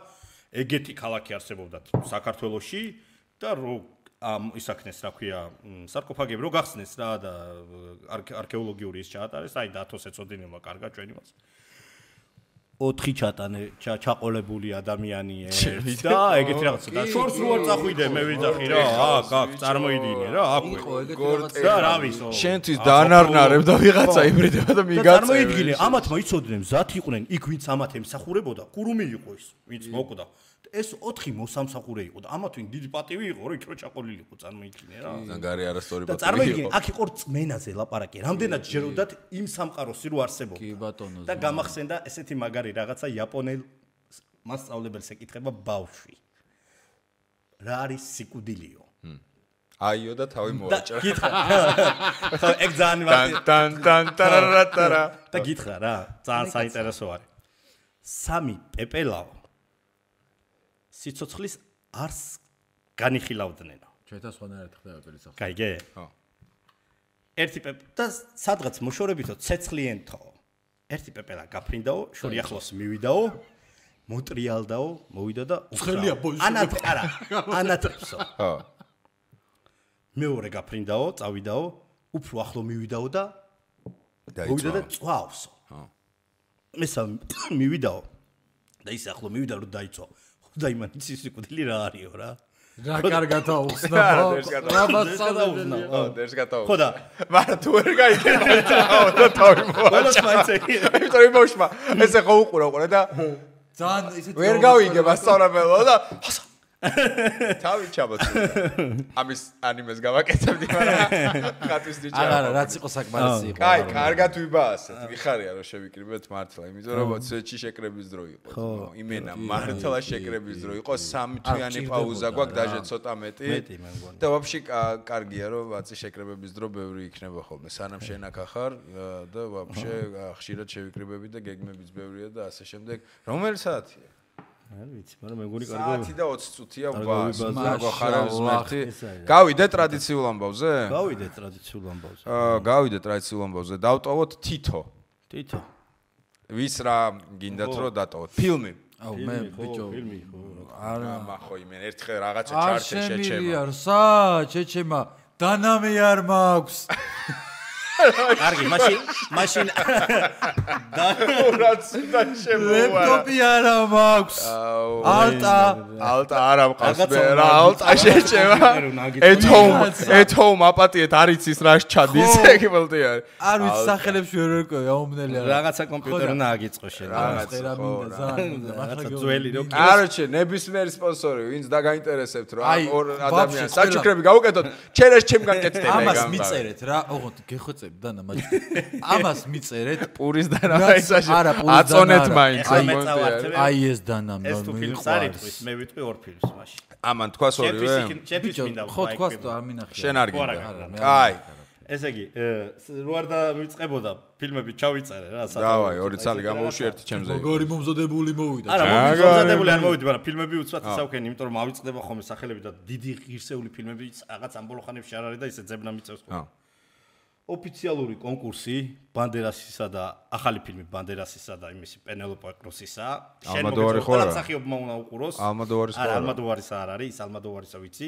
ეგეთი ქალაქი არსებობდა საქართველოში და რომ ისაქნეს რა ქვია სარკოფაგები რო გახსნეს რა და არქეოლოგიური ის ჩაატარეს აი დათოს ეწოდინება კარგად ჩვენ იმას 4 ჩატანე ჩაყოლებული ადამიანი ერთ და ეგეთი რაღაცა და შორს რო არ წახვიდე მე ვიძახი რა აქ წარმოიდინე რა აქ და რა ვისო შენთვის დაანარნარებ და ვიღაცა იბრიდება და მიგაწევ წარმოიდგინე ამათმა იცოდნენ მზად იყვნენ იქ ვინც ამათ ემსახურებოდა კურუმი იყო ის ვინც მოკვდა ეს 4 მოსამსახურე იყო და ამათვინ დიდი პატივი იყო რომ იქ რო ჩაყოლილიყო წარმოიდგინე რა ზანგარი არასწორი პატივი იყო და წარმოიდგინე აქ იყო რწმენაზე ლაპარაკი რამდენად ჯეროდათ იმ სამყაროსი რო არსებობდა კი ბატონო და გამახსენდა ესეთი მაგარი რაღაცა იაპონელ მასწავლებელს ეკითხება ბავშვი რა არის სიკვდილიო აიო და თავი მოვაჭრა გითხრა ხო ეგ ძალიან ტან და გითხრა რა ძალიან საინტერესო არის 3 პეპელაო სიცოცხლის არს განიხილავდნენ. ჩვენთან სხვანაირად ხდება პეპელის ახლა. კაიგე? ხო. ერთი პეპე და სადღაც მოშორებითო ცეცხლიენთო. ერთი პეპელა გაფრინდაო, შორი ახლოს მივიდაო, მოტრიალდაო, მოვიდა და ცხელია ბოისო. ანატრებსო. ხო. მეორე გაფრინდაო, წავიდაო, უფრო ახლო მივიდაო და მოვიდა და წვავსო. ხო. მესამე მივიდაო და ის ახლო მივიდა რომ დაიწვა. და იმან ის სიკვდილი რა არისო რა რა კარგად აუხსნა რა მასწავლებელი ხო დერს გატაო ხო და მაგრამ თუ ვერ გაიგე და თავი მოაჭრა იმიტომ რომ მოშმა ესე ხო უყურა და ძალიან ისეთ ვერ გავიგე მასწავლებელო და თავი ჩაბოცდა ამის ანიმეს გავაკეთებდი მაგრამ ხატვის დიჭა არა რაც იყო საკმარისი იყო კაი კარგად ვიბაასეთ ვიხარია რომ შევიკრიბეთ მართლა იმიტომ რომ სვეტში შეკრების დრო იყო იმენა მართლა შეკრების დრო იყო 3 თვიანი პაუზა გვაქვს დაჟე ცოტა მეტი და ვაფშე კარგია რომ ვაცი შეკრებების დრო ბევრი იქნება ხოლმე სანამ შენ აქ ახარ და ვაფშე ხშირად შევიკრიბები და გეგმებიც ბევრია და ასე შემდეგ რომელი საათია არ ვიცი, მაგრამ მეგონი კარგია. საათი და 20 წუთია ბას. მაგახარავის მერტი. გავიდე ტრადიციულ ამბავზე? გავიდე ტრადიციულ ამბავზე. გავიდე ტრადიციულ ამბავზე. დავტოვოთ თითო. თითო. ვის რა გინდათ რომ დატოვოთ? ფილმი. აუ მე ბიჭო ფილმი ხო. არა მახო იმენ ერთხელ რაღაცა ჩარტი შეჩემა. შეჩემა. შეჩემა. დანამი არ მაქვს. კარგი, მაშინ დანურაც და შემოვა. ლეპტოპი არა მაქვს. ალტა არა მყავს მე რა ალტა შეჩემა. ეთოუმ აპატიეთ არის ის რა ჩადის ეგებელტი არის. არ ვიცი სახელებს ვერ ვერკვევი აუმნელი არა. რაღაცა კომპიუტერი უნდა აგიწყო შენ. რაღაცა ძველი რო არჩე ნებისმიერი სპონსორი ვინც დაგაინტერესებთ რა ორ ადამიანს საჩუქრები გავუკეთოთ ჩერეს ჩემგან კეთდება ეგ ამას მიწერეთ რა ოღონდ გეხოცები დანა მაჯი ამას მიწერეთ პურის დანა ისაში აწონეთ მაინც აი ეს დანა ეს თუ ფილმს არის მე ვიტყვი ორ ფილმს მაშინ ამან თქვას ორივე ჩემთვის მინდა ხო თქვას და არ მინახია შენ არ გინდა კაი ესე იგი რო არ დავიწყებოდა ფილმები ჩავიწერე რა დავაი ორი წალი გამოუშვი ერთი ჩემზე როგორი მომზადებული მოვიდა არა მომზადებული არ მოვიდი მაგრამ ფილმები უცბად ისავქენი იმიტომ რომ ავიწყდება ხოლმე სახელები და დიდი ღირსეული ფილმები რაღაც ამ ბოლო ხანებში არ არის და ისე ძებნა მიწევს ხოლმე ოფიციალური კონკურსი ბანდერასისა და ახალი ფილმი ბანდერასისა და იმისი პენელოპე კრუსისა შენ მოგეწონა მსახიობმა უნდა უყუროს ალმადოვარის ხო არა ალმადოვარისა არ არის ის ალმადოვარისა ვიცი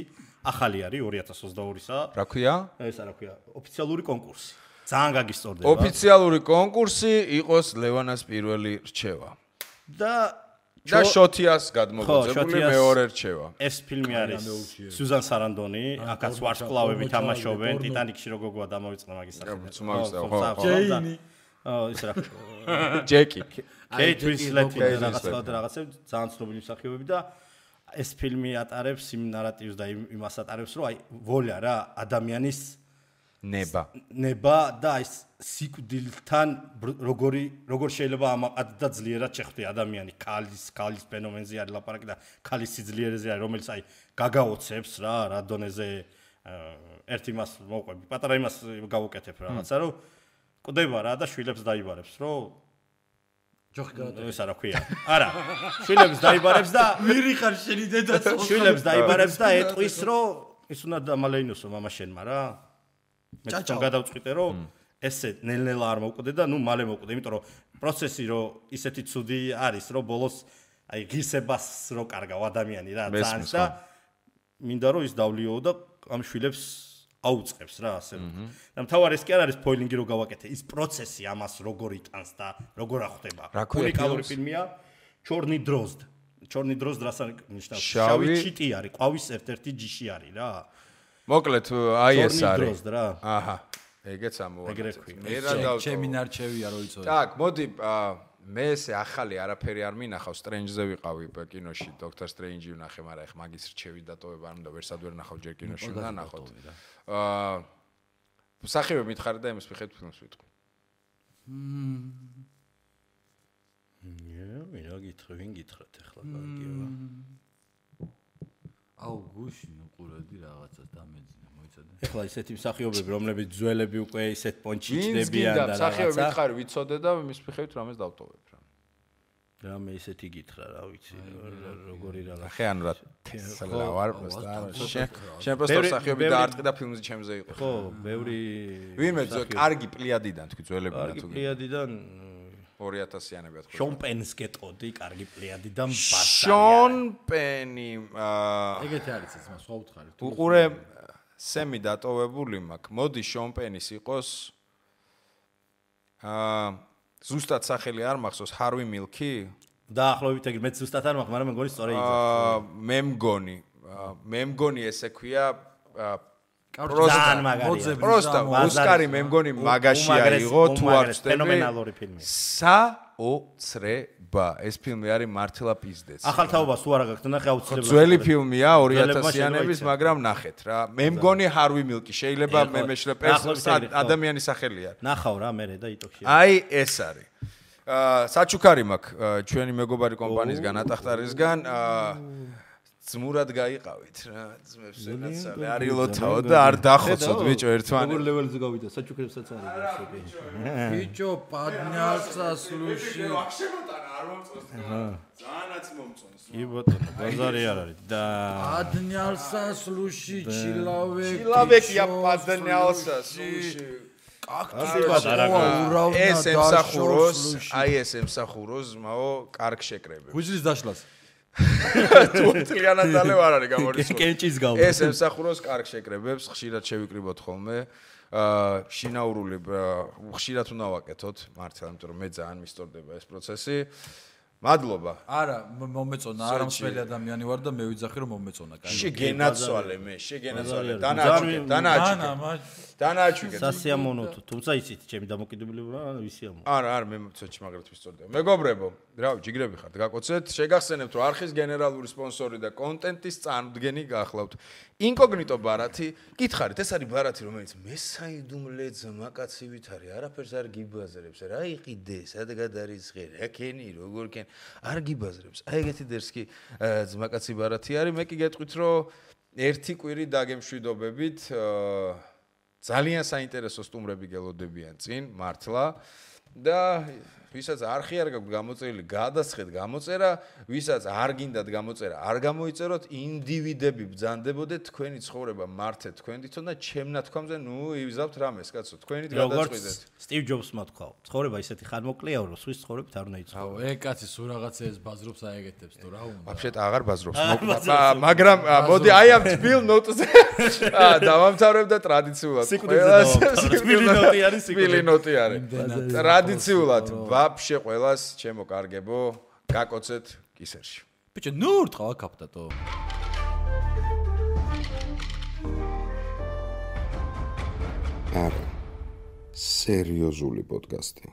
ახალი არის 2022-სა რა ქვია ეს რა ქვია ოფიციალური კონკურსი ძალიან გაგისწორდება ოფიციალური კონკურსი იყოს ლევანას პირველი რჩევა და შოთიას გადმოგოწებული მეორე რჩევა. ეს ფილმი არის სუზან სარანდონი, აქაც ვარსკვლავები თამაშობენ, ტიტანიკში როგორ გვა დამოვიწყდა მაგის სახელი. ხო. ჯეინი. ის რა. ჯეკი. კეით უინსლეტი რაღაცა ძალიან ცნობილი მსახიობები და ეს ფილმი ატარებს იმ ნარატივს და იმას ატარებს, რომ აი ვოლა რა ადამიანის ნება და ის სიკვდილთან როგორ შეიძლება ამაყად და ძლიერად შეხვდე ადამიანი ქალის ფენომენზე არის ლაპარაკი და ქალის სიძლიერეზე არის რომელიც აი გაგაოცებს რა დონეზე ერთ იმას მოყვები პატარა იმას გავუკეთებ რაღაცა რომ კვდება რა და შვილებს დაიბარებს რომ ჯოხი გაატარა ეს რა ქვია არა შვილებს დაიბარებს და ვირი ხარ შენი დედაც შვილებს დაიბარებს და ეტყვის რომ ის უნდა დამალეინოსო მამაშენმა რა. მე თვითონ გადავწყვიტე რომ ესე ნელ-ნელა არ მოვკვდე და ნუ მალე მოვკვდე, იმიტომ რომ პროცესი რო ისეთი ცუდი არის, რომ ბოლოს აი ღირსებას რო კარგავ ადამიანი რა ძალიან და მინდა რომ ის დავლიო და ამ შვილებს აუწყებს რა ასე რომ. და მთავარი ეს კი არ არის სპოილინგი რო გავაკეთე, ის პროცესი ამას როგორ იტანს და როგორ ახდება. უნიკალური ფილმია ჩორნი დროზდ. ჩორნი დროზდ რას ნიშნავს? შავი ჩიტი არის, ყვავის ერთ-ერთი ჯიში არის რა. მოკლედ აი ეს არის. ჩორნი დროზდ რა. აჰა. ეგეც ამოვაკეთე. მე რა დავწო. ჩემი ნარჩევია რო იწოდე. так, მოდი მე ესე ახალი არაფერი არ მინახავ, Strange-ზე ვიყავი კინოში, Doctor Strange-ი ვნახე, მაგრამ ეხ მაგის რჩევით დატოვება არ უნდა, ვერსად ვერ ნახავ ჯერ კინოში უნდა ნახოთ. სახიობი მითხარი და იმის მიხედვით ფილმს ვიტყვი. ვინ გითხრათ ახლა კარგია. აუ გუშინ უყურებდი რაღაცას დამეძინა, მოიცადე. ახლა ისეთი მსახიობები, რომლებიც ძველები უკვე ისეთ პონჩიჩდებიან და რაღაცა. მსახიობი მითხარი ვიცოდე და იმის მიხედვით რამეს დავტოვებ რა. რამე ისეთი გითხრა რა ვიცი, როგორი რაღაცა. ხე ანუ რა თესლა ვარ პროსტა. შენ პროსტა მსახიობი დაარტყი და ფილმზე ჩემზე იყო. ხო, ბევრი ვინმე კარგი პლიადიდან თქვი ძველებიდან თუ. კარგი პლიადიდან 2000-იანები თქვი. შონ პენს გეტყოდი, კარგი პლიადიდან ბატა. შონ პენი ეგეთი არის ეს მას სხვა უთხარი. უყურე სემი დატოვებული მაქვს. მოდი შონ პენის იყოს ზუსტად სახელი არ მახსოვს, ჰარვი მილკი? დაახლოებით ეგრე, მეც ზუსტად არ მაქვს, მაგრამ მე მგონი სწორი იძახი. მე მგონი ესე ქვია პროსტა ოსკარი მე მგონი მაგაში აიღო თუ არ ვწდები. ფენომენალური ფილმი. საოცრება. ეს ფილმი არის მართლა პიზდეც. ახალ თაობას თუ არა გაქვთ, ნახე აუცილებლად. ძველი ფილმია 2000-იანების, მაგრამ ნახეთ რა. მე მგონი ჰარვი მილკი შეიძლება მე მეშლე ადამიანის სახელი არის. ნახავ რა მე და იტოქში. აი ეს არის. საჩუქარი მაქვს ჩვენი მეგობარი კომპანიისგან ატახტარისგან ძმურად გაიყავით რა ძმებს ვენაცალე არილოთაო და არ დახოცოთ ბიჭო ერთმანეთს. როგორ ლეველზე გავიდა საჩუქრებსაც არის გასული. ბიჭო პადნიალსასლუში ვახშემოტანა არ მომწონს. ძალიანაც მომწონს. კი ბატონო ბაზარი არ არის და პადნიალსასლუში ჩილავეკი. ჩილავეკია პადნიალსასლუში. ეს ემსახუროს, აი ეს ემსახუროს მაო კარგ შეკრებებს. გუჯრის დაშლას. თუ თლიანად დალევ არ არის გამორიცხული. კენჭის გავ. ეს ემსახუროს კარგ შეკრებებს, ხშირად შევიკრიბოთ ხოლმე. შინაურული ხშირად უნდა ვაკეთოთ, მართლა, იმიტომ რომ მე ძალიან მისტორდება ეს პროცესი. მადლობა. არა, მომეწონა, არა მსმელი ადამიანი ვარ და მე ვიძახი რომ მომეწონა, კაი. შეგენაცვალე მე, შეგენაცვალე. დანააჩვენე. სასიამოვნო თუ, თუმცა იცით, ჩემი დამოკიდებულება ვისი ამო. არა, მე ცოტა მაგრად ვისწორდება. მეგობრებო, რავი, ჯიგრები ხართ, გაკოცეთ. შეგახსენებთ, რომ არხის გენერალური სპონსორი და კონტენტის წარმოდგენი გახლავთ. ინკოგნიტო ბარათი, გითხარით, ეს არის ბარათი, რომელიც მესაიდუმლე ძმაკაცივით არის, არაფერს არ გიბაზრებს, რა იყიდე, სადღაც არის ღე, რა ქენი, როგორ ქენ, არ გიბაზრებს. აი ეგეთი დერსკი ძმაკაცი ბარათი არის, მე კი გეტყვით, რომ ერთი კვირი დაგემშვიდობებით, ძალიან საინტერესო სტუმრები გელოდებიან წინ, მართლა და ვისაც არხი არ გაქვთ გამოწერილი, გადასხეთ გამოწერა, ვისაც არ გინდათ გამოწერა, არ გამოიწეროთ, ინდივიდები ბრძანდებოდეთ, თქვენი ცხოვრება მართეთ თქვენ თვითონ და ჩემ ნათქვამზე, ნუ ივზავთ რამეს, კაცო, თქვენით გადაწყვეტეთ. სტივ ჯობსმა თქვა, ცხოვრება ისეთი ხანმოკლეა, რომ სვის ცხოვრებით არ უნდა იცოდე. აუ, კაცი სულ რაღაცეებს ბაზრობს აეგეთებს თუ რა უნდა. ვაფშეთ აღარ ბაზრობს, მაგრამ მოდი აი ამ თბილ ნოტზე დავამთავრებ და ტრადიციულად ყველას თბილი ნოტი არის. ტრადიციულად ვაფშე ყველას ჩემო კარგებო, გაკოცეთ კისერში. ბიჭო, ნუ ურტყავ აკაპტატო. არა. სერიოზული პოდკასტი.